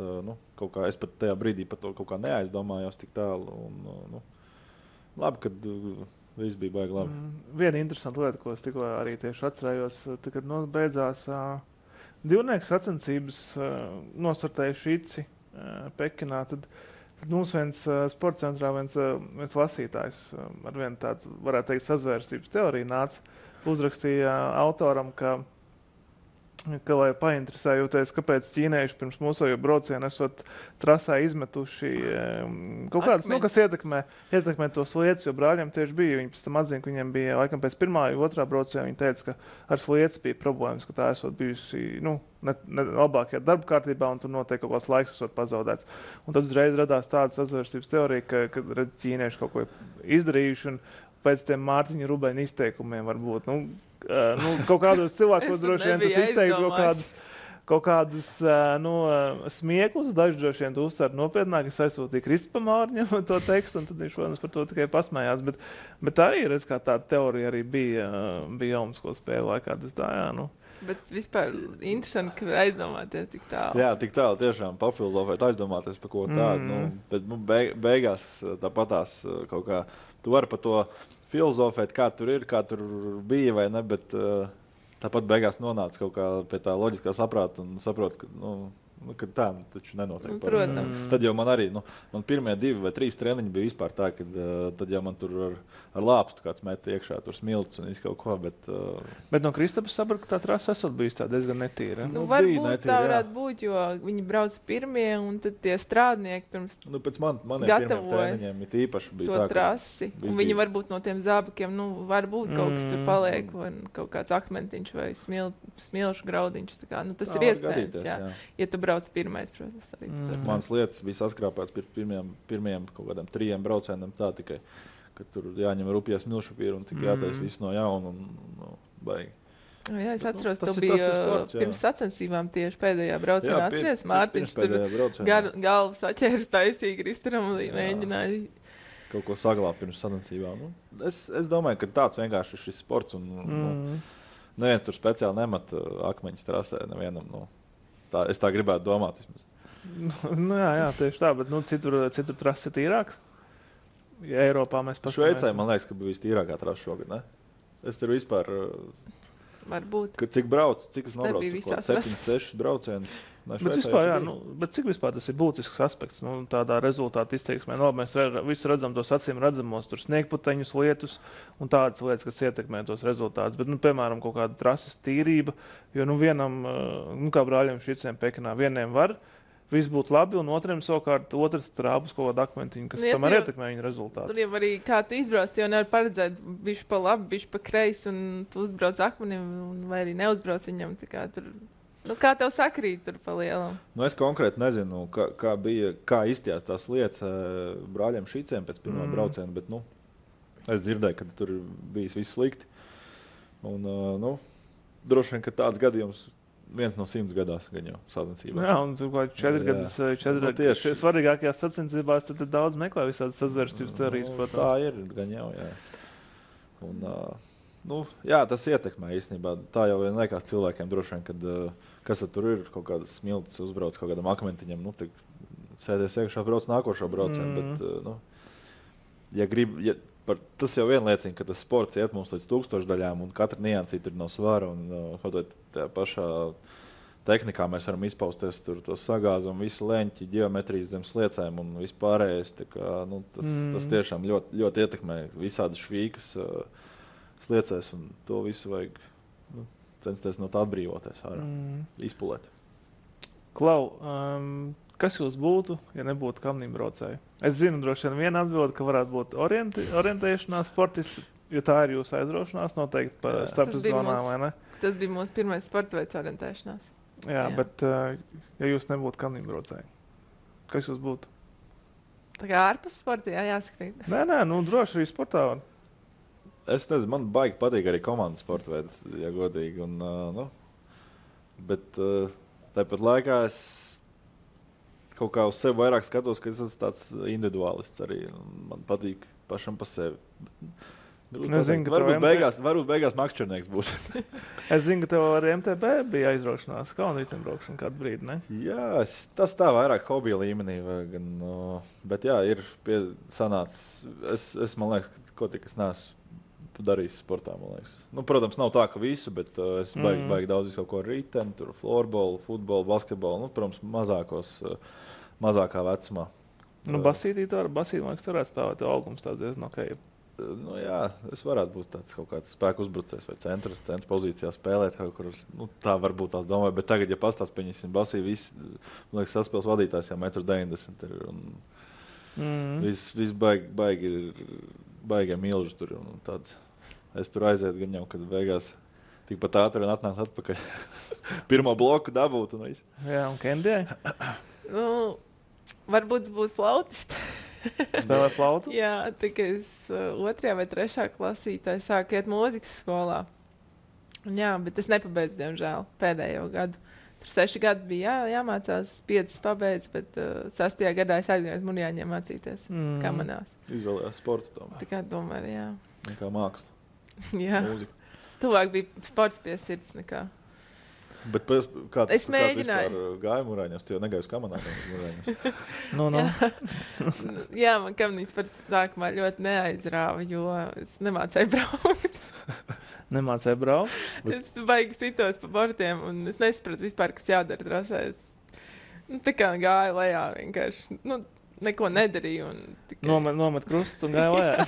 kaut kā es pat tajā brīdī par to kaut kā neaizdomājos tik tālu. Un, labi, kad viss bija baigi labi. Viena interesanta lieta, ko es tikko arī tieši atcerējos, kad beidzās divnieku sacensības, nosartēja Šici Pekinā, tad mums viens sporta centrā, viens lasītājs ar vienu tādu, varētu teikt, sazvērstības teoriju nāca, uzrakstīja autoram, ka vai painteresējoties, kāpēc ķīnieši pirms mūsējo braucienu esot trasā izmetuši kaut kādas, kas ietekmē tos lietas, jo brāļiem tieši bija. Viņi pēc tam atzina, ka viņiem bija, laikam pēc pirmā vai otrā brauciena, viņi teica, ka ar slietas bija problēmas, ka tā esot bijusi, ne labākajā darba kārtībā, un tur noteikti kaut kāds laiks esot pazaudēts. Un tad uzreiz radās tāda sazvērstības teorija, ka redz, ķīnieši kaut ko izdarījuši, un pēc tiem Mārtiņa Rubeņa izteikumiem varbūt, kaut kādos cilvēkos droši vien tas izteikt kaut kādus smieklus, daži droši vien uzsver nopietnāk, es aizsūtīju Kristupam Mārņam to tekstu, un tad viņš, protams, par to tikai pasmējās, bet arī, redz, kā tāda teorija arī bija Olimpisko spēļu laikā, tas tā, jā, Bet vispār interesanti, ka aizdomāties tik tālu. Jā, tik tālu tiešām papilozofēt, aizdomāties par ko tādu, bet beigās tāpatās kaut kā, tu vari par to filozofēt, kā tur ir, kā tur bija vai ne, bet tāpat beigās nonāca kaut kā pie tā loģiskā saprāta un saprot, ka tā taču nenotiek. Protams. Tad jau man arī, man pirmie 2 vai 3 treniņi bija vispār tā, ka tad jau man tur ar lāpstu kāds met iekšā, tur smilts un kaut ko, bet no Kristapas sapratu, ka tā trasa esot bijis tā diezgan netīra. Varbūt netīra, tā varētu būt, jo viņi brauca pirmie, un tad tie strādnieki pirms pēc maniem pirmiem treniņiem it īpaši bija to tā, trasi. Un viņi varbūt no tiem zābakiem, varbūt kaut kas tur paliek, vai kaut kāds akmentiņš vai smilšu graudiņš. Tā kā, tas ir iespējams, jā. Ja tu brauc pirmais, protams, arī. Mans lietas bija saskrāpēts pirmiem kaut kādiem 3 braucieniem tā tikai, ka tur jāņem rupjas milšupīru un tik jātais viss no jauna un baigi. Jā, es atceros, to bija sports, pirms sacensībām tieši pēdējā braucienā. Atceries, Mārtiņš tur galvu saķērs taisīgi Kristaram un mēģināja kaut ko saglābt pirms sacensībām. Es domāju, ka tāds vienkārši ir šis sports un neviens tur speciāli nemat akmeņus trasē nevienam. Es tā gribētu domāt vismaz. Jā, tieši tā, bet citur trases ir tīrāks. Ja Eiropā mēs paskatāmies. Šveicē, man liekas, ka bija vistīrākā trasa šogad, ne? Es tur vispār... Varbūt. Cik brauc, cik es nobraucu? 7-6 braucieni. Bet vispār, bet cik vispār tas ir būtisks aspekts, tādā rezultāta izteiksmē. Mēs visi redzam tos acīm redzamos, tur sniegputeņus lietus un tādas lietas, kas ietekmē tos rezultātus. Bet, piemēram, kaut kāda trases tīrība, jo vienam, kā brāļiem Šiciem Pekinā, vieniem var viss būtu labi, un otriem savukārt otrs trāpus kaut kādu akmentiņu, kas tam arī ietekmē viņa rezultātu. Tur jau arī, kā tu izbrauc, jau nevar paredzēt bišķi pa labi, bišķi pa kreisi, un tu uzbrauc akmenim, vai arī neuzbrauc viņam. Kā tev sakrīt tur pa lielam? Es konkrēti nezinu, kā izstījās tās lietas brāļiem Šiciem pēc pirmā brauciena, bet es dzirdēju, ka tur bijis viss slikti. Un, droši vien, ka tāds gadījums 1 no 100 gadās gan jau sacensībās. Jā, un tur kaut 4 gadus svarīgākajās sacensībās, tad daudz meklē visādas sazvērstības teorijas. Tā ir gan jau, jā. Un, jā, tas ietekmē īstenībā. Tā jau vien liekas cilvēkiem droši vien, kad kas tad tur ir, kaut kādas smiltis uzbrauc kaut kādam akmentiņam, sēdies iekšā brauc nākošo braucienu, bet, tas jau vien liecina, ka tas sports iet mums līdz 1000 daļām, un katra niansīte ir no svara, un kaut vai tajā pašā tehnikā mēs varam izpausties tur to sagāzumu, visu leņķi, ģeometrijas zem sliecēm un vispārējais. Tā kā, tas tiešām ļoti, ļoti ietekmē visādi švīkas sliecēs, un to visu vajag censties no tā atbrīvoties ārā, izpulēt. Klau, kas jūs būtu, ja nebūtu kamnīmbraucēji? Es zinu, droši vien viena atbilde, ka varētu būt orientēšanās sportisti, jo tā ir jūsu aizraušanās noteikti par starpsezonām, vai ne? Tas bija mūsu pirmais sporta veids orientēšanās. Jā, bet ja jūs nebūtu kamnīmbraucēji, kas jūs būtu? Tā kā ārpus sporta, jāskrīt. Nē, droši arī sportā var. Es nezinu, man baigi patīk arī komandas sporta veids, ja godīgi. Bet tāpat laikā es kaut kā uz sevi vairāk skatos, ka es esmu tāds individuālists arī. Man patīk pašam pa sevi. Varbūt beigās makšķernieks būs. Es zinu, ka tev ar MTB bija aizraušanās kalnu riteņbraukšana kādu brīdi, ne? Jā, tas tā vairāk hobija līmenī. Bet jā, ir sanācis. Es man liekas, ko tik es neesmu darījis sportā, man liekas. Protams, nav tā, ka visu, bet es baigi daudz visu kaut ko riteni, tur florbolu, futbolu, basketbolu, protams, mazākā vecumā. Basītī man liekas, varētu spēlēt, jo augums tāds diezgan ok. Jā, es varētu būt tāds kaut kāds spēku uzbrucējs vai centra pozīcijā spēlēt kaut kur. Tā varbūt tās domāju, bet tagad, ja pastāst, pieņemsim basī, visi, man liekas, saspēles vadītājs jau 1,90 m ir. Viss baigi milži tur un tāds. Es tur aizietu gan jau, kad beigās tikpat ātri un atnākt atpakaļ. Pirmo bloku dabūt un viss. Jā, un Kendijai? Varbūt būtu flautisti. Spēlē flautu? Jā, tikai es 2. vai 3. klasītē sāku iet mūzikas skolā. Jā, bet es nepabeidzu, diemžēl, pēdējo gadu. Tur 6 gadi bija jāmācās, 5 pabeidz, bet 6. gadā es aizgāju uz Murjāņiem mācīties, kā manās. Izvēlējās sportu tomēr. Tā kā tomēr, jā. Nekā māksla. Jā. Mūzika. Tuvāk bija sports pie sirds nekā. Bet es mēģināju. Kāds gāja Murjāņos, tu jau negāji uz kamanām Murjāņos. Jā, man kamnīs par sākumā ļoti neaizrāva, jo es nemācēju braukt. Nemācēju braukt? Es baigi sitos pa bortiem un es nesapratu vispār, kas jādara trasē. Tā kā gāju lejā vienkārši. Neko nedarīju. Nomet krustus un gāju lejā.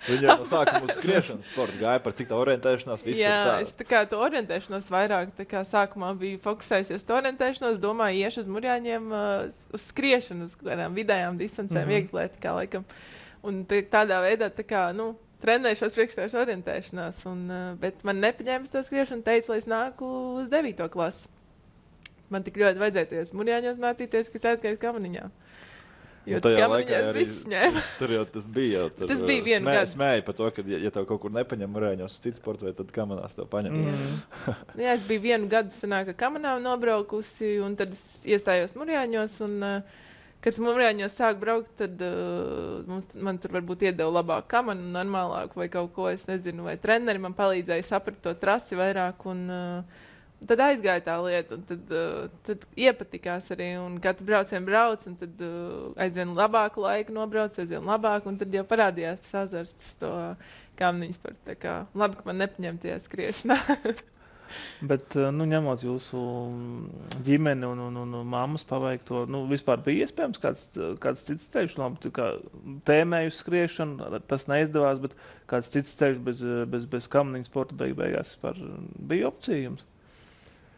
Viņa no sākuma uz skriešanas sportu gāja par cik tā orientēšanās. Jā, es tā kā to orientēšanos vairāk. Tā kā sākumā biju fokusējusies to orientēšanos, domāju, iešu uz Murjāņiem uz skriešanu, uz kādām vidējām distancēm, vieglietikā laikam. Un tādā veidā tā kā, trenēšos priekšstāšu orientēšanās, bet man nepaņēma to skriešanu, teica, lai es nāku uz 9. klasi. Man tik ļoti vajadzēties Murjāņos mācīties, ka es aizgāju kamaniņā. Jo kamaniņās viss ņēma. Tur jau tas bija. Tas bija vienu gadu. Smēja par to, ka ja tev kaut kur nepaņem Murjāņos uz citu sportu, vai tad kamanās tev paņem. Jā, es biju vienu gadu sanāk, kamanām nobraukusi, un tad es iestājos Murjāņos, un kad es Murjāņos sāku braukt, tad man tur varbūt iedeva labāku kamanu, normālāku vai kaut ko, es nezinu, vai treneri man palīdzēja saprast to trasi vairāk, un tad aizgāja tā lieta, un tad iepatikās arī, un katru braucienu brauc, un tad aizvien labāku laiku nobrauc, aizvien labāk, un tad jau parādījās tas azarts to kamniņas par tā kā, labi, ka man nepaņem tie skriešanā. Bet, ņemot jūsu ģimeni un mammas paveikto, vispār bija iespējams kāds cits ceļš, tēmēju skriešanu, tas neizdevās, bet kāds cits ceļš bez kamniņu sporta beigās bija opcija jums?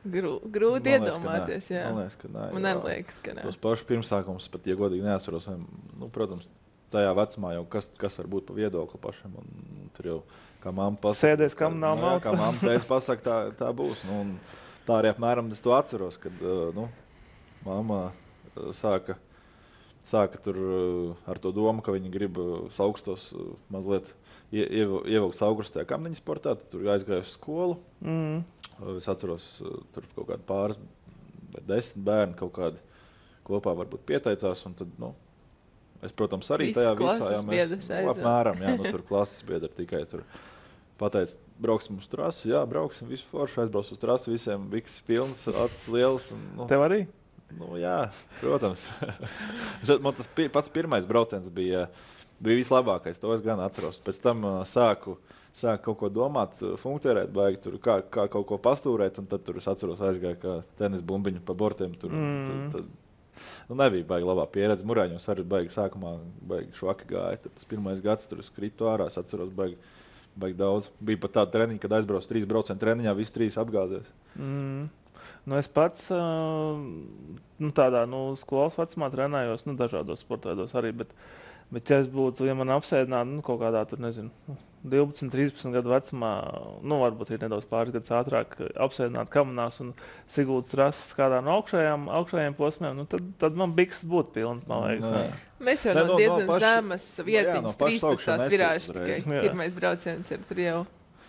Grūti iedomāties, jā. Man liekas, ka nē. Man arī liekas, ka nē. Tos pašus pirmsākumus pat, ja godīgi neatceros, protams, tajā vecumā jau kas var būt pa viedokli pašam, un tur jau kā mamma pasaka. Sēdēs, kam nav malta. Kā mamma teica pasaka, tā būs. Un tā arī apmēram es to atceros, kad mamma sāka tur ar to domu, ka viņi grib augstos mazliet ievilkt augustajā kamniņu sportā, tad tur aizgāju uz skolu. Es atceros, tur kaut kādi pāris vai 10 bērni kaut kādi kopā varbūt pieteicās, un tad, es, protams, arī tajā visā, apmēram, tur klases biedri tikai tur pateica, brauksim uz trasi, jā, brauksim, visu foršu, aizbrauc uz trasi, visiem biks pilns, acis liels. Tev arī? Jā, protams. Man tas pats pirmais brauciens bija vislabākais, to es gan atceros. Pēc tam sāku sāk kaut ko domāt, funkcionēt, baigi tur, kā kaut ko pastūrēt, un tad tur es atceros aizgāju kā tenis bumbiņu pa bortiem. Tur, tad, nebija baigi labā pieredze. Murāņos arī baigi sākumā baigi švaki gāja. Tad tas pirmais gads tur es kritu ārā, es atceros baigi daudz. Bija pat tāda treniņa, kad aizbrauc 3% treniņā, visi 3 apgāzies. Es pats tādā skolas vecumā trenējos, dažādos sportēdos arī, bet ja es būtu, ja man apsēdinātu kaut kādā tur, nezinu, 12, 13 gadu vecumā, varbūt ir nedaudz pāris gadus ātrāk apsēdināt kamanās un Siguldas trases kādā no augšējiem posmiem, tad man biksas būtu pilns, man liekas. Mēs jau no diezgan zemes vietiņas, 13. virāžas tikai. Pirmais brauciens ir tur jau.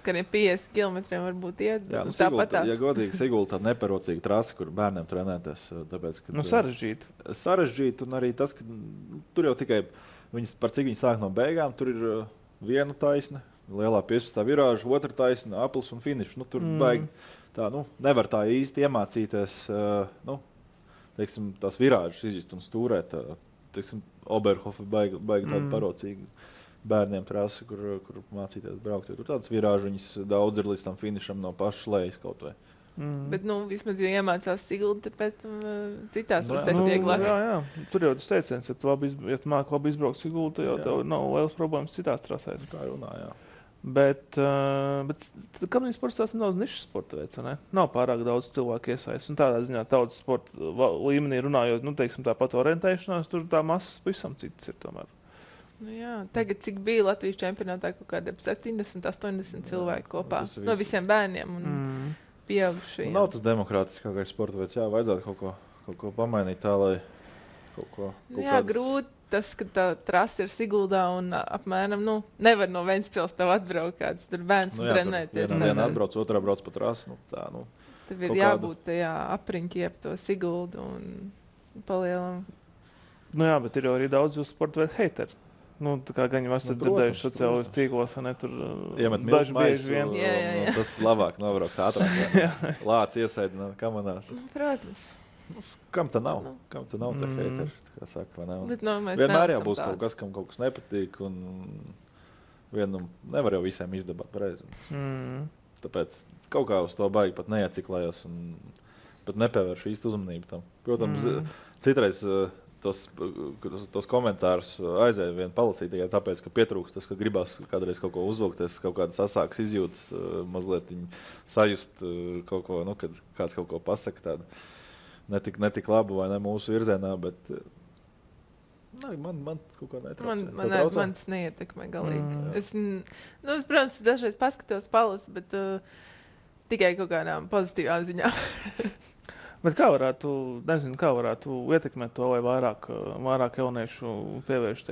Skaniem 50 kilometriem varbūt iet. Jā, ja godīgi, Sigulda tāda neparocīga trasa, kur bērniem trenēties. Tāpēc, ka, sarežģīt, un arī tas, ka tur jau tikai, par cik viņi sāk no beigām, tur ir viena taisna, lielā 15. virāža, otra taisna, aplis un finišs. Tur baigi tā, nevar tā īsti iemācīties, teiksim, tās virāžas izjust un stūrēt. Teiksim, Oberhofa baigi tāda parocīga. Bērniem trasi, kur mācīties braukt. Tur tādas virāžiņas daudz ir līdz tam finišam no pašas lejas kaut vai. Bet, vismaz, ja iemācās Sigulda, tad pēc tam citās trasēs vieglāk. Jā. Tur jau tas teiciens, ja tu māki labi izbraukt Sigulda, tad jau tev nav lielas problēmas citās trasēs. Tā runā, jā. Bet kamniņu sports tās nedaudz nišas sporta veids, ne? Nav pārāk daudz cilvēku iesaist. Un tādā ziņā tautas sporta līmenī runājot, teiksim, tāpat orientēšanās, tur tā masas pavisam citas ir tomēr. Jā, tagad, cik bija Latvijas čempionātā, kaut kāda 70, 80 cilvēku kopā no visiem bērniem un pieaugušajiem. Nav tas demokrātiskākais sporta veids, vajadzētu kaut ko pamainīt tā, lai kaut ko... Grūti tas, ka tā trasa ir Siguldā un apmēram, nevar no Ventspils tev atbraukt kāds tur bērns un trenēties. Viena atbrauc, otrā brauc pa trasu, Tev ir jābūt tajā apriņķi ap to Siguldu un palielam. Bet ir jau arī daudz jūsu sporta veidu heiteri. Tā kā gan jau esat dzirdējuši sociālajos tīklos, tur daži bieži vien. Tas labāk nobrauks ātrāk. Lāc iesaidināt kamanās. Protams. Kam tā nav? Kam tā nav tā heiteri? Kā saka, vai nav? Bet, vienmēr jau būs kaut kas, kam kaut kas nepatīk. Un nevar jau visiem izdabāt pareizi. Tāpēc kaut kā uz to baigi pat neieciklējos un pat nepievēršu īstu uzmanību tam. Protams, citreiz... Tos komentārus aizēja vien palasīt tikai tāpēc, ka pietrūkst tas, ka gribās kādreiz kaut ko uzvilkties, kaut kādas asākas izjūtas, mazliet sajust kaut ko, kad kāds kaut ko pasaka tādu netik labu vai ne mūsu virzienā, bet man kaut kā netraucē. Man tas neietekmē galīgi. Es, protams, dažreiz paskatos palasu, bet tikai kaut kādām pozitīvām ziņām. Bet kā varētu ietekmēt to, vai vairāk jauniešu pievērš,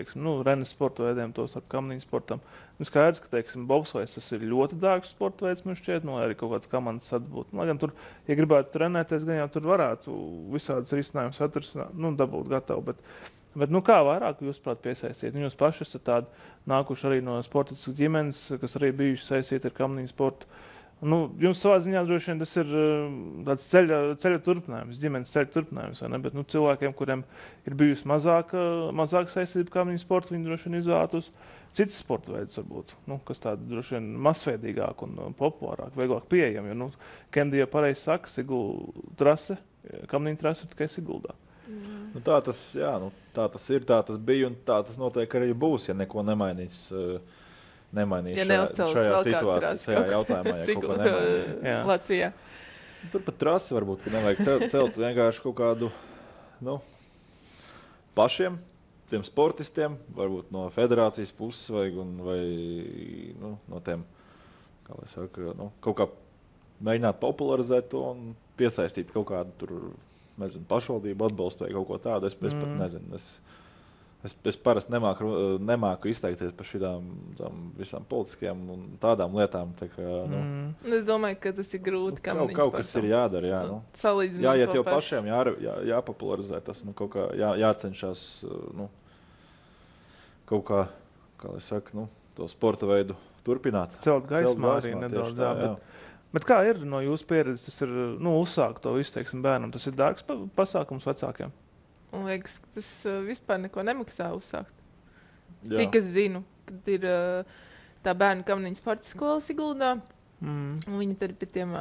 renes sporta veidiem, tos ar kamniņu sportam? Skaidrs, ka, bobslejs tas ir ļoti dārgs sporta veids, man šķiet, arī kaut kāds komandas atbūt. Lai gan tur, ja gribētu trenēties, gan jau tur varētu visādas risinājumus atrisināt, dabūt gatavu, bet kā vairāk jūs, prāt, piesaistīt? Jūs paši esat tādi nākuši arī no sportiskas ģimenes, kas arī bijuši saistīti ar kamniņu sportu. Jums savā ziņā droši vien tas ir tāds ceļa turpinājums, ģimenes ceļa turpinājums, vai ne? Bet cilvēkiem, kuriem ir bijusi mazāk saistība kamniņu sporta, viņi droši vien izvēlētos citus sporta veidus varbūt, kas tādi droši vien masveidīgāk un populārāk, vieglāk pieejami. Jo, Kendija pareizi saka, Sigulda trase, kamniņu trase ir tikai Siguldā. Tā tas ir, tā tas bija un tā tas noteikti arī būs, ja neko nemainīs šajā situācijā, šajā jautājumā, ja kaut ko nemainīs. Latvijā. Turpat trasi varbūt, ka nevajag celt vienkārši kaut kādu, pašiem, tiem sportistiem, varbūt no federācijas puses vai no tiem, kā lai saka, kaut kā mēģināt popularizēt to un piesaistīt kaut kādu tur, pašvaldību atbalstu vai kaut ko tādu. Es pat nezinu. Es parasti nemāku izteikties par šitām visām politiskajām un tādām lietām. Tā kā, Es domāju, ka tas ir grūti. Kaut kas ir jādara. Jā, jāiet jau pašiem, jāpopularizē tas, kaut kā jācenšas kaut kā lai saka, to sporta veidu turpināt. Celt gaismā arī nedaudz. Bet kā ir no jūsu pieredzes, tas ir uzsākt to visu, bērnam? Tas ir dārgs pasākums vecākiem? Man liekas, ka tas vispār neko nemaksā uzsākt. Cik es zinu, kad ir tā bērnu kamniņu sporta skola Siguldā. Un viņi tad pie tiem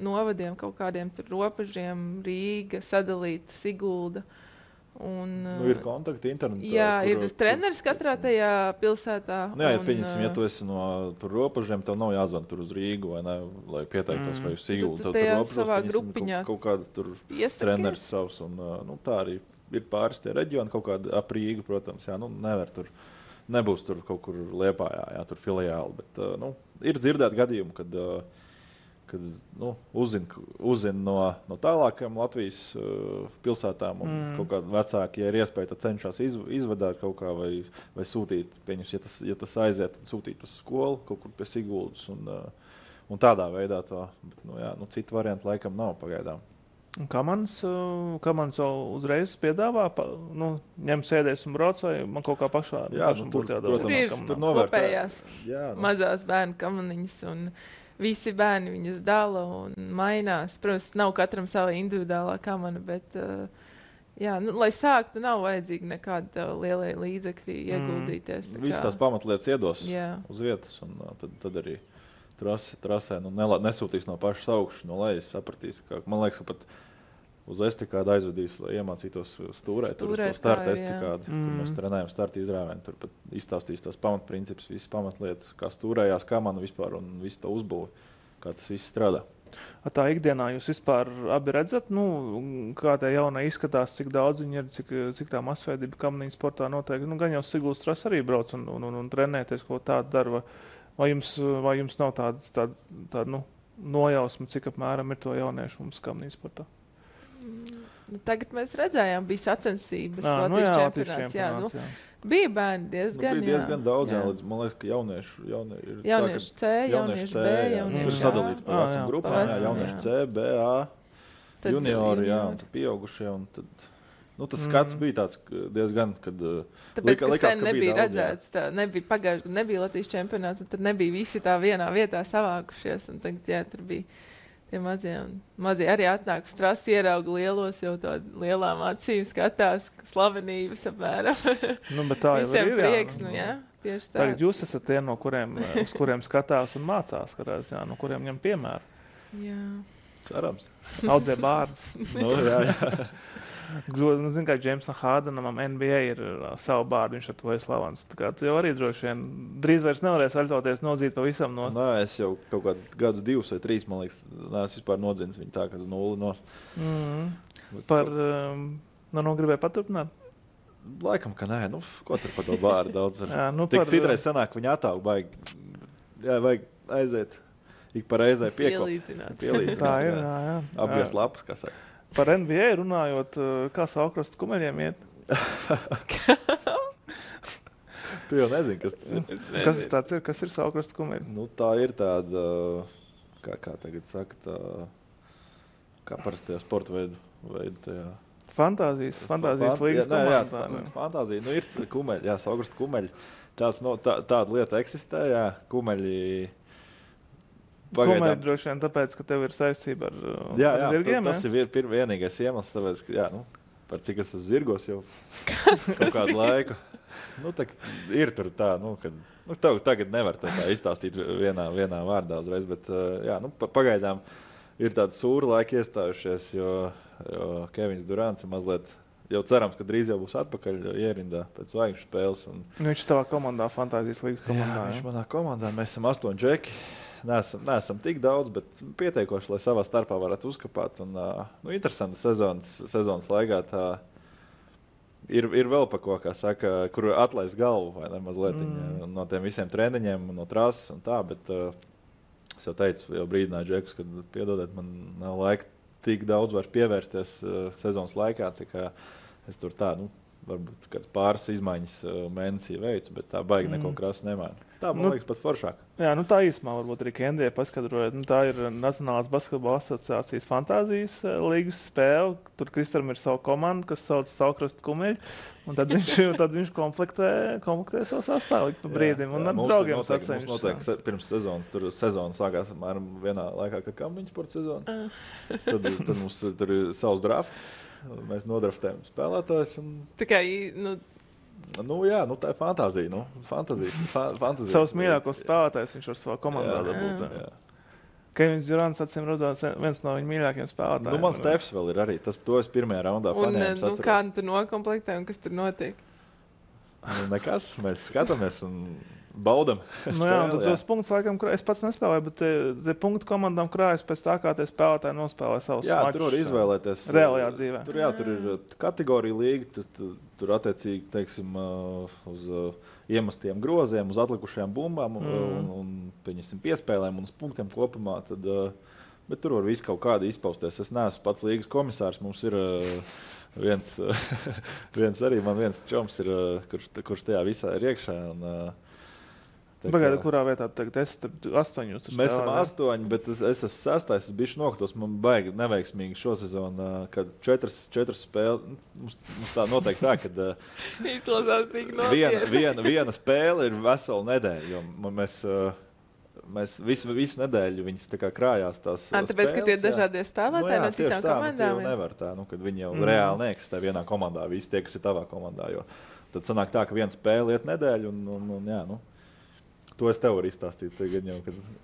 novadiem kaut kādiem tur robežiem, Rīga, sadalīta Sigulda. Un, ir kontakti internetā. Jā, ir treneris katrā tajā pilsētā. Nu, jā, pieņemsim, ja tu esi no tur robežiem, tev nav jāzvan tur uz Rīgu, vai ne, lai pieteiktos vai uz Siguldu. Tad tajā savā grupiņā kaut kāds tur treneris savs. Un, tā arī ir pāris tie reģioni, kaut kāda ap Rīgu, protams. Jā, nevar tur, nebūs tur kaut kur Liepājā, jā, tur filiāli. Bet ir dzirdēt gadījumu, kad uzzina no tālākajām Latvijas pilsētām un kaut kādi vecāki, ja ir iespēja, tad cenšas izvadāt kaut kā vai sūtīt, pieņems, ja tas aiziet, tad sūtīt uz skolu kaut kur pie Siguldas un tādā veidā to, bet, citu variantu laikam nav pagaidām. Kā man uzreiz piedāvā, ņem sēdēs un brauc, vai man kaut kā pašā? Jā, tur ir kopējās mazās bērnu kamaniņas un visi bērni viņus dala un mainās. Protams, nav katram sava individuālā kamana, bet, lai sāktu, nav vajadzīgi nekāda lielie līdzekļi ieguldīties. Visas tās pamatlietas iedos uz vietas, un tad arī trasē nesūtīs no pašas augšas, no lejas sapratīs. Man liekas, ka pat uz estikādu aizvedīs, lai iemācītos stūrēt, tur uz to starta estikādu, kur mēs trenējam starta izrāvienu. Tur pat izstāstīs tās pamatprincipus, visas pamatlietas, kā stūrējās kamana vispār un visu to uzbūvi, kā tas viss strādā. Tā ikdienā jūs vispār abi redzat, kā tie jaunai izskatās, cik daudz viņi ir, cik tā masveidība kamaniņu sportā notiek. Gan jau Siguldas tras arī brauc un trenēties, ko tādu dara. Vai jums nav tāda nojausma, cik apmēram ir to jauniešu mums kamaniņu sportā? Tagad mēs redzējām, bija sacensības Latvijas čempionāts. Bija bērni diezgan, bija diezgan daudz, līdz, man liekas, ka jauniešu C, jauniešu B, tur sadalīts par vecuma grupām, jauniešu C, B, A, juniori, un tad pieaugušie, un tad, tas skats bija tāds diezgan, kad tāpēc, ka sen nebija redzēts, nebija Latvijas čempionāts, un tad nebija visi tā vienā vietā savākušies, un tagad, tur bija tie mazie arī atnāk uz trasi, ierauga lielos, jau tādi lielām acīm skatās, slavenības apmēram. Bet tā jau ir, prieks, tieši tā. Tagad jūs esat tie, uz kuriem skatās un mācās, no kuriem ņem piemēru. Jā. Cerams. Audzē bārdus. Jā. Zinu, kā Jamesam Hardenam NBA ir savu bārdu, viņš ar to ir slavens. Tā kā tu jau arī droši vien drīz vairs nevarēs aļķoties nodzīt pavisam nost. Es jau kaut kādus gadus 2 vai 3, man liekas, neesmu vispār nodzins viņu tā, kas 0 nost. Gribēju paturpināt? Laikam, ka nē, ko tur par to bārdu daudz ar. Tik citreiz sanāk, viņa atāug baigi. Jā, vajag aiziet, ik pa reizē piekopt. Pielīdzināt. Tā ir, jā. Apgriezt lapas, kā saka. Par NBA runājot, kā Saukrastu kumeļiem iet? Tu jau nezini, kas tas ir. Kas tāds ir? Kas ir Saukrastu kumeļi? Tā ir tāda, kā tagad saka, kā parastajā sporta veidu tajā. Fantāzijas līgas komandā. Fantāzija, ir kumeļi, Saukrastu kumeļi. Tāda lieta eksistē, kumeļi. Kumeļi droši vien tāpēc, ka tev ir saistība ar zirgiem. Tas ir vienīgais iemesls, tāpēc, ka, par cik es esmu zirgos jau kaut kādu laiku. Ir tur tā, kad tagad nevar tā izstāstīt vienā vārdā uzreiz, bet, pagaidām ir tādi sūri laiki iestājušies, jo Kevins Durants ir mazliet, jau cerams, ka drīz jau būs atpakaļ ierindā pēc zvaigžņu spēles. Viņš tavā komandā, Fantāzijas līgas komandā. Viņš manā komandā, mēs esam 8 džeki. Neesam tik daudz, bet pietiekoši, lai savā starpā varētu uzkapāt. Un, interesanti sezonas laikā tā ir vēl pa ko, kā saka, kur atlaist galvu vai ne mazliet no tiem visiem treniņiem, no trases un tā, bet es jau teicu, jau brīdināju džekus, kad piedodiet, man nav laika tik daudz vairs pievērsties sezonas laikā, tā kā es tur tā, varbūt kāds pāris izmaiņas mēnesī veicu, bet tā baigi neko krasi nemaina. Tā, man liekas, pat foršāk. Jā, tā īsumā varbūt arī Kendija paskatrojot. Tā ir Nacionālās basketbola asociācijas Fantāzijas līgas spēle. Tur Kristam ir savu komandu, kas sauc Saukrastu kumeļi. Un tad viņš komplektē savu sastāvu pa brīdim. Un ar draugiem sacensties. Mums notiek pirms sezonas. Tur sezona sākās apmēram vienā laikā, kā kampiņu sporta sezona. Tad mums tur ir savs drafts. Mēs nodraftējam spēlētājus. Tā kā, Nu, jā, nu, tā ir fantāzija. Fantāzija. Savus mīļākos spēlētājus viņš var savā komandā dabūt. Jā. Kevins Durants, acīm redzot, viens no viņa mīļākajiem spēlētājiem. Nu, man Stefs vēl ir arī. To es pirmajā raundā paņēmu. Un kā tu nokomplektē un kas tur notiek? Nu, nekas. Mēs skatāmies un baudam. Nu, jā, tos punktus laikam, es pats nespēlēju, bet tie punktu komandām krājas pēc tā, kā tie spēlētāji nospēlē savus mačus. Jā, tur var izvēlēties. Reālajā dzīvē. Tur ir kategorija līga, tur attiecīgi, teiksim, uz iemestiem groziem, uz atlikušajām bumbām un piespēlēm un uz punktiem kopumā. Bet tur var visu kaut kādi izpausties. Es neesmu pats līgas komisārs. Mums ir viens čoms, kurš tajā visā ir iekšā. Pagaidi, kurā vietā tagad es tur 8? Mēs esam 8, bet es esmu 6. Es biju nokritos. Man baigi neveiksmīgi šo sezonu, kad 4 spēles. Mums tā noteikti tā, ka izklausās tik nopietni. Viena spēle ir vesela nedēļa, jo mēs visu nedēļu viņas tā kā krājās tās spēles. Tāpēc, ka tie ir dažādie spēlētāji no citām komandām. Nu, nevar tā, kad viņi jau reāli neeksistē vienā komandā, visi tie, kas ir tavā komandā. Jo tad sanāk tā, ka viena spēle iet nedēļu un jā, nu. To es tev varu izstāstīt. Tagad jau,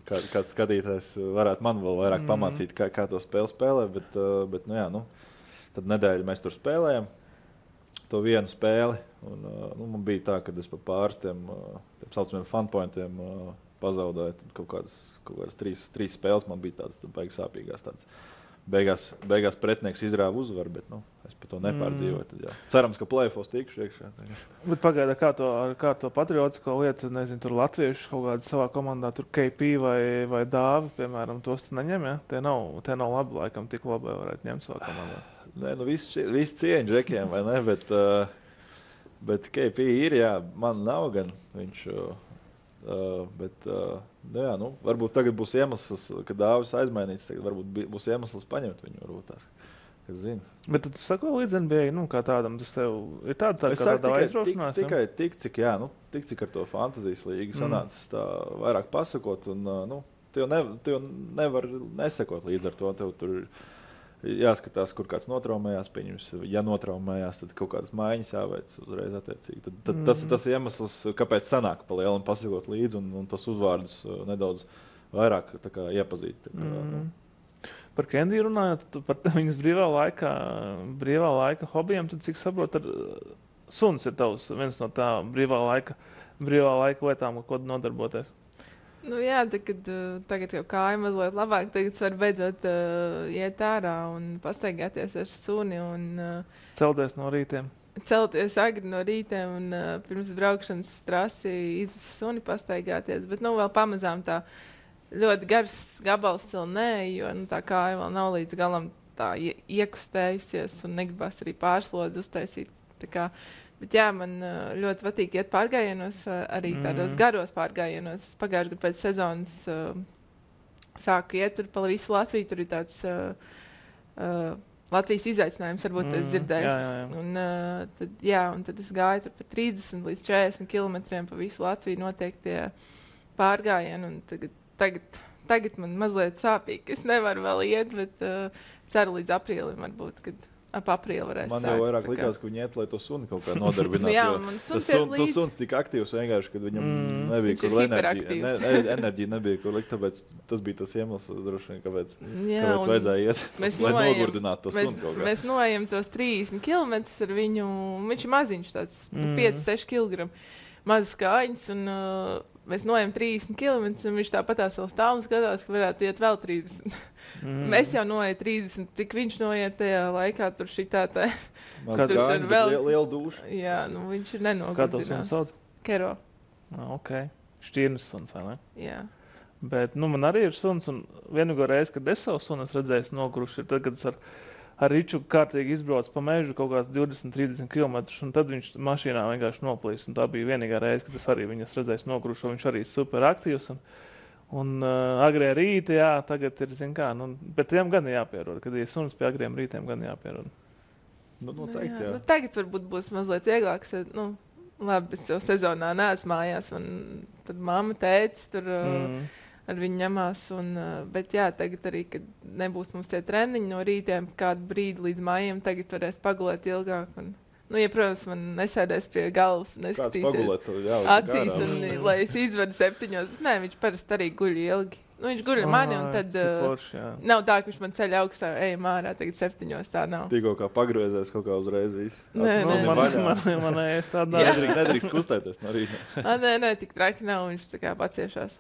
kad kāds skatītājs varētu man vēl vairāk pamācīt, kā to spēli spēlē. Bet nu, jā, nu, tad nedēļu mēs tur spēlējam to vienu spēli. Un, man bija tā, ka es pa pāris tiem saucamiem funpointiem pazaudēju. Tad kaut kādas 3 spēles man bija tādas baigas sāpīgās. Beigās pretinieks izrāva uzvaru, bet es par to nepārdzīvoju. Tad, jā. Cerams, ka play-offs tikšu iekšā. Bet pagaida, kā to patriotisko lietu, nezinu, tur latvieši kaut kādā savā komandā, tur KP vai Dāvi, piemēram, tos tu neņem, ja? Tie nav labi, laikam, tik labi varētu ņemt savā komandā. Nē, visi cieņi džekiem, vai ne, bet KP ir, jā, man nav gan viņš... jā, nu, varbūt tagad būs iemesls, kad Dāvis aizmainīts, tagad varbūt būs iemesls paņemt viņu, varbūt tās, kas zina. Bet tu sako līdz NBA, kā tādam, tas tev ir tāda aizraušanās? Tikai tik, cik ar to fantazijas līgu sanācis tā vairāk pasakot, un, tu jau nevar nesekot līdz ar to, tev tur jāskatās, kur kāds notraumējās, pieņems, ja notraumējās, tad kaut kādas maiņas jāveic uzreiz attiecīgi. Tad tas ir iemesls, kāpēc sanāk pa lielam pasakot līdzi un tos uzvārdus nedaudz vairāk tā kā iepazīt. Par Kendiju runājot, par viņas brīvā laika hobijiem, tad cik saprot, suns ir tavs viens no tā brīvā laika lietām, ko nodarboties. Nu jā, tagad jau kāja mazliet labāk, tagad var beidzot iet ārā un pastaigāties ar suni un celties no rītiem. Celties agri no rītiem un pirms braukšanas trasi izvest suni pastaigāties, bet vēl pamazām tā ļoti gars gabals vēl nē, jo tā kāja vēl nav līdz galam tā iekustējusies un negribas arī pārslodzi uztaisīt. Bet jā, man ļoti patīk iet pārgājienos, arī tādos garos pārgājienos. Es pagājušajā gadā pēc sezonas sāku iet tur pa visu Latviju. Tur ir tāds Latvijas izaicinājums, varbūt es dzirdēju. Un tad es gāju tur pa 30 līdz 40 kilometriem pa visu Latviju notiek tie pārgājieni. Un tagad man mazliet sāpīgi. Es nevaru vēl iet, bet ceru līdz aprīlim varbūt, kad ap aprīli varēs man jau vairāk likās, ka viņi iet, lai to suni kaut kā nodarbinātu. Jā, man tas suns tika aktīvs vienkārši, kad viņam nebija kur enerģija nebija kur likt, tāpēc tas bija tas iemesls, droši vien, kāpēc vajadzēja iet, lai nogurdinātu to suni kaut kā. Mēs noejam tos 30 kilometrus ar viņu, viņš ir maziņš tāds, 5-6 kg, mazas kājiņas, un mēs noejam 30 km, un viņš tāpatās vēl stāv un skatās, ka varētu iet vēl 30. Mēs jau noejam 30, cik viņš noiet tajā laikā, tur šitā tā. Kāds liela dūša. Jā, viņš ir nenogurdinās. Kā tos suns sauc? Kero. Ok. Šķirnes suns, vai ne? Jā. Bet, man arī ir suns, un vienīgo reizi, kad es savu sunu redzēju nogruši, ir tad, kad es ar Riču kārtīgi izbrauc pa mežu kaut kāds 20-30 km, un tad viņš mašīnā vienkārši noplīs. Un tā bija vienīgā reize, kad es arī viņas redzēju nogrušo. Viņš arī super aktīvs. Un agrie rīti, jā, tagad ir, bet tiem gan jāpierod. Kad ir suns pie agriem rītiem, gan jāpierod. Noteikti, jā. Tagad varbūt būs mazliet vieglāk. Labi, es jau sezonā neesmu mājās. Tad mamma, tētis tur... ar viņu ņemās. Bet jā, tagad arī, kad nebūs mums tie treniņi no rītiem, kādu brīdi līdz mājiem, tagad varēs pagulēt ilgāk. Nu, ja, protams, man nesēdēs pie galvas un Kāds neskatīsies pagulēt, jā, acīs, un, lai es izvedu 7. Bet nē, viņš parasti arī guļ ilgi. Nu, viņš guļ ar mani, un tad nav tā, ka viņš man ceļ augstā, ejam ārā, tagad 7. tā nav. Tikko kā pagriezies kaut kā uzreiz viss. Nē, Man ēst tādā. Nedrīkst kustēties no rīta. Nē, tik traki nav, viņš tā kā paciešās.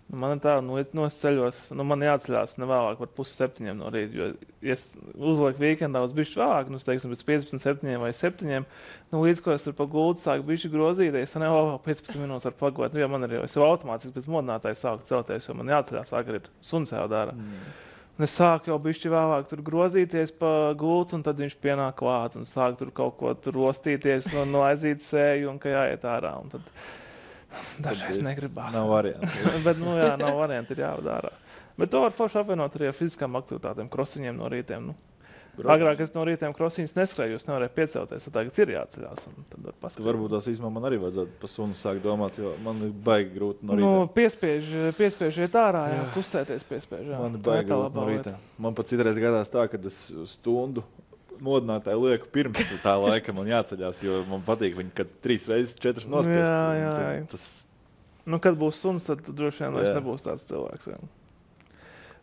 Man ir tā, es ceļos, man jāatceļās nevēlāk par 6:30 no rīta, jo, ja es uzlieku vīkendā uz bišķi vēlāk, es teiksim, pēc 15:07 vai 7, līdz ko es ar paguldu sāku bišķi grozīties, un vēl 15 minūtes ar pagulēt, jo man ir jau, es jau automātiski pēc modinātāja sāku celties, jo man jāatceļās agrīt, suns jau dara. Un es sāku jau bišķi vēlāk tur grozīties pa gultu, un tad viņš pienāk klāt, un sāku tur kaut ko tur rostīties, no aizīt sēju, un ka jāiet ārā, un tad dažreiz negribās. Nav variantu. Bet, nav variantu, ir jāvadārā. Bet to var forši apvienot arī ar fiziskām aktivitātēm, krosiņiem no rītiem. Agrāk es no rītiem krosiņus neskrēju, es nevarēju piecelties, tagad ir jāceļās. Varbūt tās īstenībā man arī vajadzētu pa sunu sākt domāt, jo man ir baigi grūti no rīta. Piespiež iet ārā, kustēties piespiež. Man ir baigi grūti no rīta. Man pat citreiz gadās tā, kad es stundu modinātāju lieku pirms tā laika man jāceļās, jo man patīk viņu, kad 3 reizes 4 nospiest. Jā. Kad būs suns, tad droši vien vairs nebūs tāds cilvēks. Jā.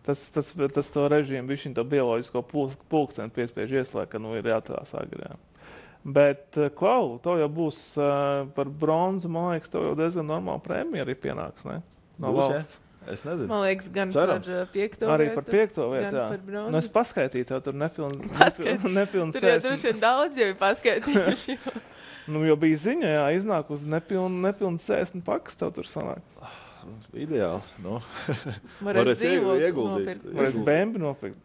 Tas to režīmu, viņš to bioloģisko pulksteni piespiež ieslēgt, ka ir jācelās agri. Jā. Bet, Klau, to jau būs par bronzu, man liekas, tev jau diezgan normāla prēmija arī pienāks, ne? No valsts. Es nezinu. Man liekas, gan cerams. Par 5. Arī vietu. Par 5. vietu, jā. Par bronzu. Es paskaitīju tev tur nepilnu Tur jau droši vien daudz jau ir paskaitījuši. Jo bija ziņa, jā, iznāk uz nepilnu 60 pakas tev tur sanāk. Ideāli. Varēs ieguldīt. Varēs bēmbi nopirkt.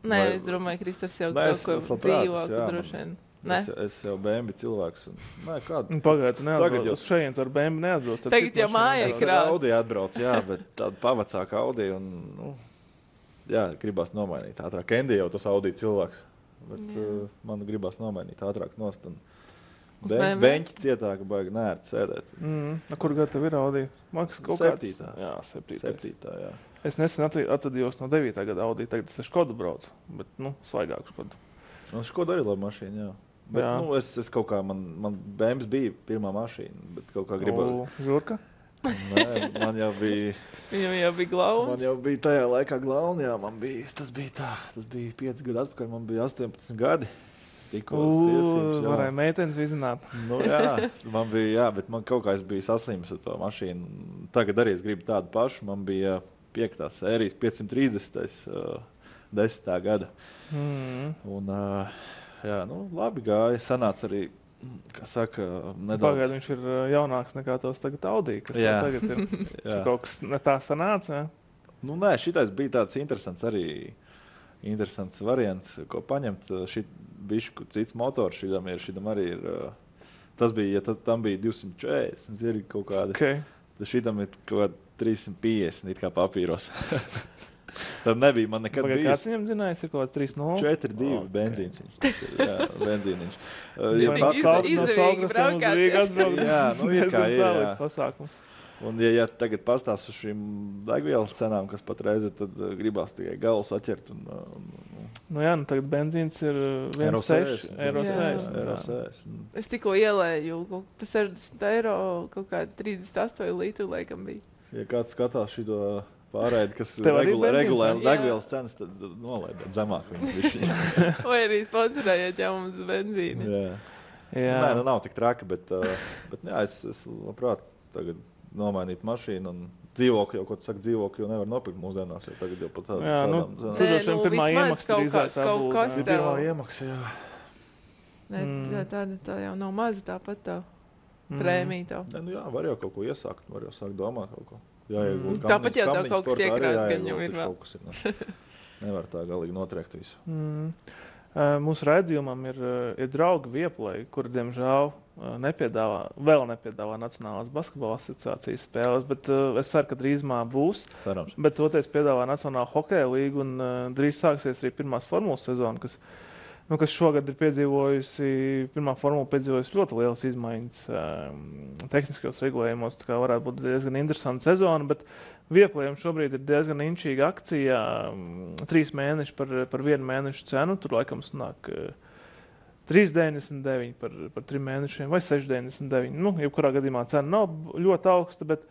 Nē, es domāju, Kristers jau kaut ko dzīvāku droši vien. Es jau bēmbi cilvēks. Pagaidu, tu neatbrauc. Uz šeit ar bēmbi neatbrauc. Tagad jau mājā ir krāsa. Audi atbrauc, jā, bet tāda pavacāka Audi. Gribās nomainīt ātrāk. Kendi jau tas Audi cilvēks. Bet man gribās nomainīt ātrāk nost. Beņķi cietāka baigi nērti sēdēt. Kur gadu tev ir Audi? Maksas kaut kāds? 7. Jā, 7. jā. Es nesen atvadījos no 9. gada Audi. Tagad es ar Škodu braucu. Bet, svaigāku Škodu. Škoda arī laba mašīna, jā. Bet, es kaut kā, man BMW bija pirmā mašīna, bet kaut kā gribēju. Žurka? Nē, man jau bija... Viņam jau bija glauna? Man jau bija tajā laikā glauna, jā, tas bija 5 gadu atpakaļ, man bija 18 gadi. Varēja meitenes vizināt. Man bija, jā, bet man kaut kā es biju saslimis ar to mašīnu. Tagad arī es gribu tādu pašu, man bija 5. sērijas 530. 10. gada. Un, labi gāja. Sanāca arī, kā saka, nedaudz. Pagaidu, viņš ir jaunāks nekā tos tagad Audi, kas tagad ir. Kaut kas ne tā sanāca, jā? Nē, šitais bija tāds interesants variants, ko paņemt. Bišku cits motors šitam arī ir. Tas bija, ja tam bija 240, ir kaut kāda. Okay. Tad šitam ir kaut kāda 350, it kā papīros. Tad nebija man nekad bijis. Kāds viņam zinājis, ir kaut kāds 3.0? 4.2 benzīns. Jā, benzīniņš. Izdevīgi braukāt. Jā, ir kā ir. Pasākums. Un ja tagad pastāst uz šīm degvielas cenām, kas patreiz ir, tad gribās tikai galus atķert. Tagad benzīns ir 1,6 eiro. Es tikko ielēju pa 60 eiro, kaut kādi 38 litru laikam bija. Ja kāds skatās šito pārēdi, kas regulē degvielas cenas, tad nolaidāt zemāk viņu. Vai arī sponsorējiet jau mums benzīni. Jā. Nē, nav tik traki, bet jā, es labprāt tagad nomainīt mašīnu un dzīvokļu, jau, ko tu saki, dzīvokļu jau nevar nopirkt mūsdienās, jo tagad jau pat tādām cenām. Tur jau pirmā iemaksa drīzāk tā būtu. Pirmā iemaksa, jā. Nē, tā jau nav maza tāpat tā prēmija tev. Nē, jā, var jau kaut ko iesākt, var jau sākt domāt kaut ko. Tāpat jau tev kaut kas iekrāt, gan jau ir vēl. Nevar tā galīgi notriekt visu. Mūsu raidījumam ir draugi Vieplay, kuri, diemžēl, nepiedāvā Nacionālās basketbola asociācijas spēles, bet es ceru, ka drīzumā būs. Cerams. Bet toties piedāvā Nacionāla hokeja līga un drīz sāksies arī pirmās formulas sezona, kas šogad ir pirmā formula piedzīvojusi ļoti lielas izmaiņas tehniskajos regulējumos, tā kā varētu būt diezgan interesanta sezona, bet Vieplayam šobrīd ir diezgan inčīga akcija, 3 mēneši par 1 mēnešu cenu, tur laikam sanāk 3,99 par 3 mēnešiem vai 6,99. Nu, jebkurā gadījumā cena nav ļoti augsta, bet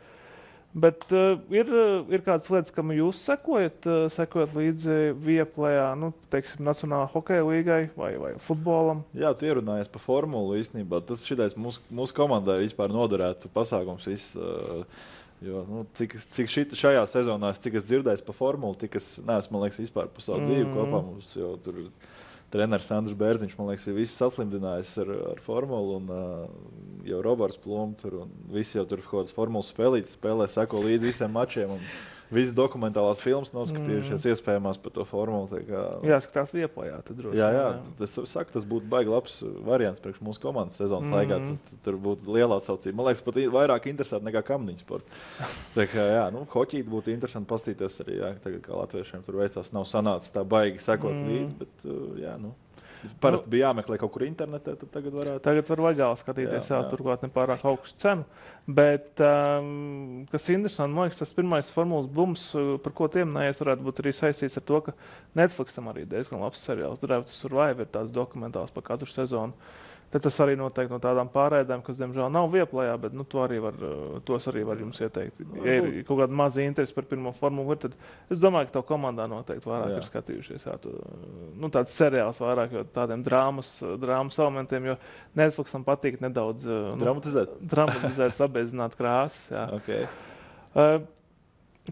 ir kādas lietas, kam jūs sekojat līdzi Viaplejā, nu, teiksim, Nacionālā hokeja līgai vai futbolam? Jā, tu ierunājies par formulu īstenībā. Tas šitais mūsu komandai vispār noderētu pasākums viss. Jo, nu, cik šajā sezonā, cik es dzirdēju par formulu, tik es neesmu, man liekas, vispār par savu dzīvi kopā mums, jo tur treneris Andris Bērziņš, man liekas, ir visi saslimdinājis ar formulu, un jau Roberts Plum tur, un visi jau tur kaut kādas formulas spēlītas spēlē, seko līdz visiem mačiem, un visas dokumentālās filmas noskatījušies iespējamās par to formulu. Jāskatās Viaplejā, tad droši. Jā. Es saku, tas būtu baigi labs variants priekš mūsu komandas sezonas laikā. Tur būtu liela atsaucība. Man liekas, pat vairāk interesanti nekā kamniņu sporta. Tā kā, jā, nu, hoķīt būtu interesanti pastīties arī, jā, tagad kā latviešiem tur veicās, nav sanācis tā baigi sekot līdz, bet, jā, nu. Parasti bija jāmeklē kaut kur internetē, tad tagad varētu. Tagad var legāli skatīties, jā. Turklāt nepārāk augstu cenu. Bet, kas interesanti, man liekas, tas pirmais formulas bums, par ko tiem neies, varētu būt arī saistīts ar to, ka Netflixam arī diezgan labs seriāls. Drive to Survive ir tāds dokumentāls par katru sezonu. Tad tas arī noteikti no tādām pārēdēm, kas, diemžēl, nav Viaplejā, bet nu, tos arī var jums ieteikt. Ja ir kaut kāda maza interese par pirmo formulu, tad es domāju, ka tev komandā noteikti vairāk ir skatījušies. Jā, tāds seriāls vairāk, jo tādiem drāmas elementiem, jo Netflixam patīk nedaudz dramatizēt, sabēzināt krāsas. Jā. Okay.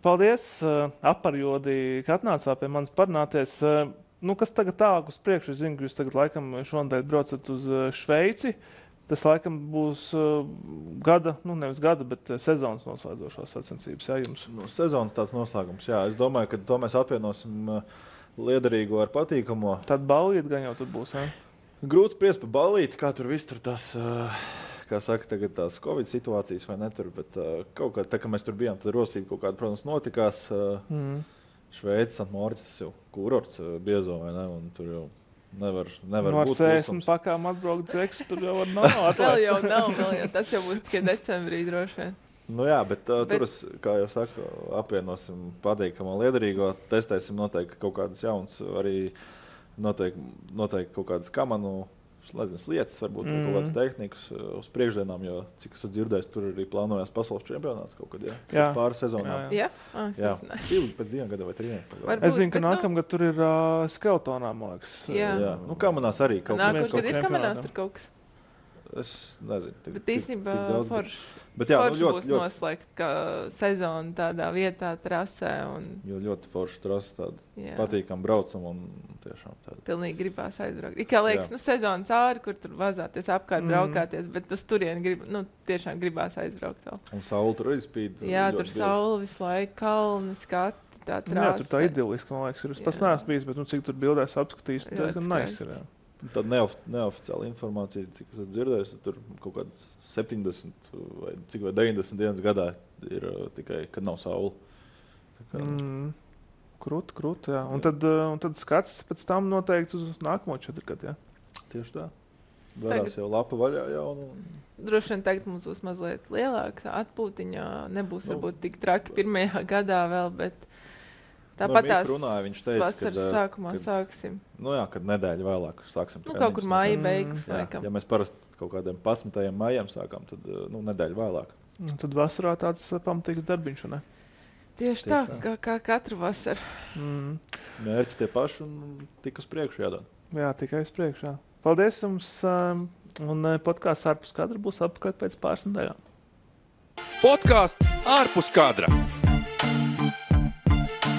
Paldies, Aparjodi, ka atnācāt pie manis parunāties. Nu, kas tagad tālāk uz priekšu? Es zinu, ka jūs tagad laikam šonadēļ braucat uz Šveici. Tas laikam būs nevis gada, bet sezonas noslēdzošās sacensības, jā, jums? Nu, sezonas tāds noslēgums, jā. Es domāju, ka to mēs apvienosim liederīgo ar patīkamo. Tad ballīti gan jau tur būs, jā? Grūti spriest par ballīti, kā tur viss tur tas, kā saka, tagad tās Covid situācijas vai netur, bet kaut kā, tā kā mēs tur bijām, tad rosība kaut kāda, protams, notikās. Šveicis, Santmorits, tas jau kurorts biezo, vai ne? Un tur jau nevar būt klusums. Ar 60 pakām atbraukt dzeksu, tur jau var nav atlaist. Vēl jau nav, tas jau būs tikai decembrī droši vien. Nu jā, bet tur, kā jau saku, apvienosim patīkamo liederīgo, testēsim noteikti kaut kādas jaunas, arī noteikti kaut kādas kamanu, lietas, varbūt kaut kādas tehnikas uz priekšdienām, jo, cik es dzirdēju, tur arī plānojās pasaules čempionāts kaut kad, jā. Pāris sezonām. Jā? Jā. Pēc 2 gadiem vai 3. Es zinu, ka nākamgad tur ir skeletonā, man liekas. Jā. Nu, kamanās arī kaut kas. Nākamgad ir kamanās tur kaut kas. Es nezinu. Bet īstenībā forši būs noslēgt sezonu tādā vietā, trasē. Jo ļoti forši trasa, tāda patīkam braucam un tiešām tāda. Pilnīgi gribās aizbraukt. Kā liekas, sezona cauri, kur tur vazāties apkārt, braukāties, bet uz turieni tiešām gribās aizbraukt vēl. Un saule tur arī spīd. Jā, tur saule visu laiku, kalni, skati, tā trasa. Jā, tur tā idiliski, man liekas, ir. Es pats neesmu bijis, bet cik tur bildēs apskatījis, tad nice ir, jā. Tad neoficiāla informācija, cik es esmu tur kaut kādas 70 vai 90 dienas gadā ir tikai, kad nav saule. Krūti, jā. Un tad skats pēc tam noteikti uz nākamo 4 gadu, jā? Tieši tā. Varās jau lapa vaļā jaunu. Droši vien tagad mums būs mazliet lielāka atpūtiņa. Nebūs varbūt tik traki pirmajā gadā vēl, bet tāpat tās vasaras sākumā sāksim. Nu jā, kad nedēļa vēlāk sāksim. Kaut kur māja beigas, laikam. Ja mēs parasti kaut kādiem 11. maijam sākām, tad nedēļa vēlāk. Tad vasarā tāds pamatīgs darbiņš, ne? Tieši tā, kā katru vasaru. Mērķi tie paši un tik uz priekšu jādod. Jā, tikai uz priekšu, jā. Paldies jums, un podkāsts ārpus kadra būs apkārt pēc pāris nedēļām. Podkāsts ārpus kadra.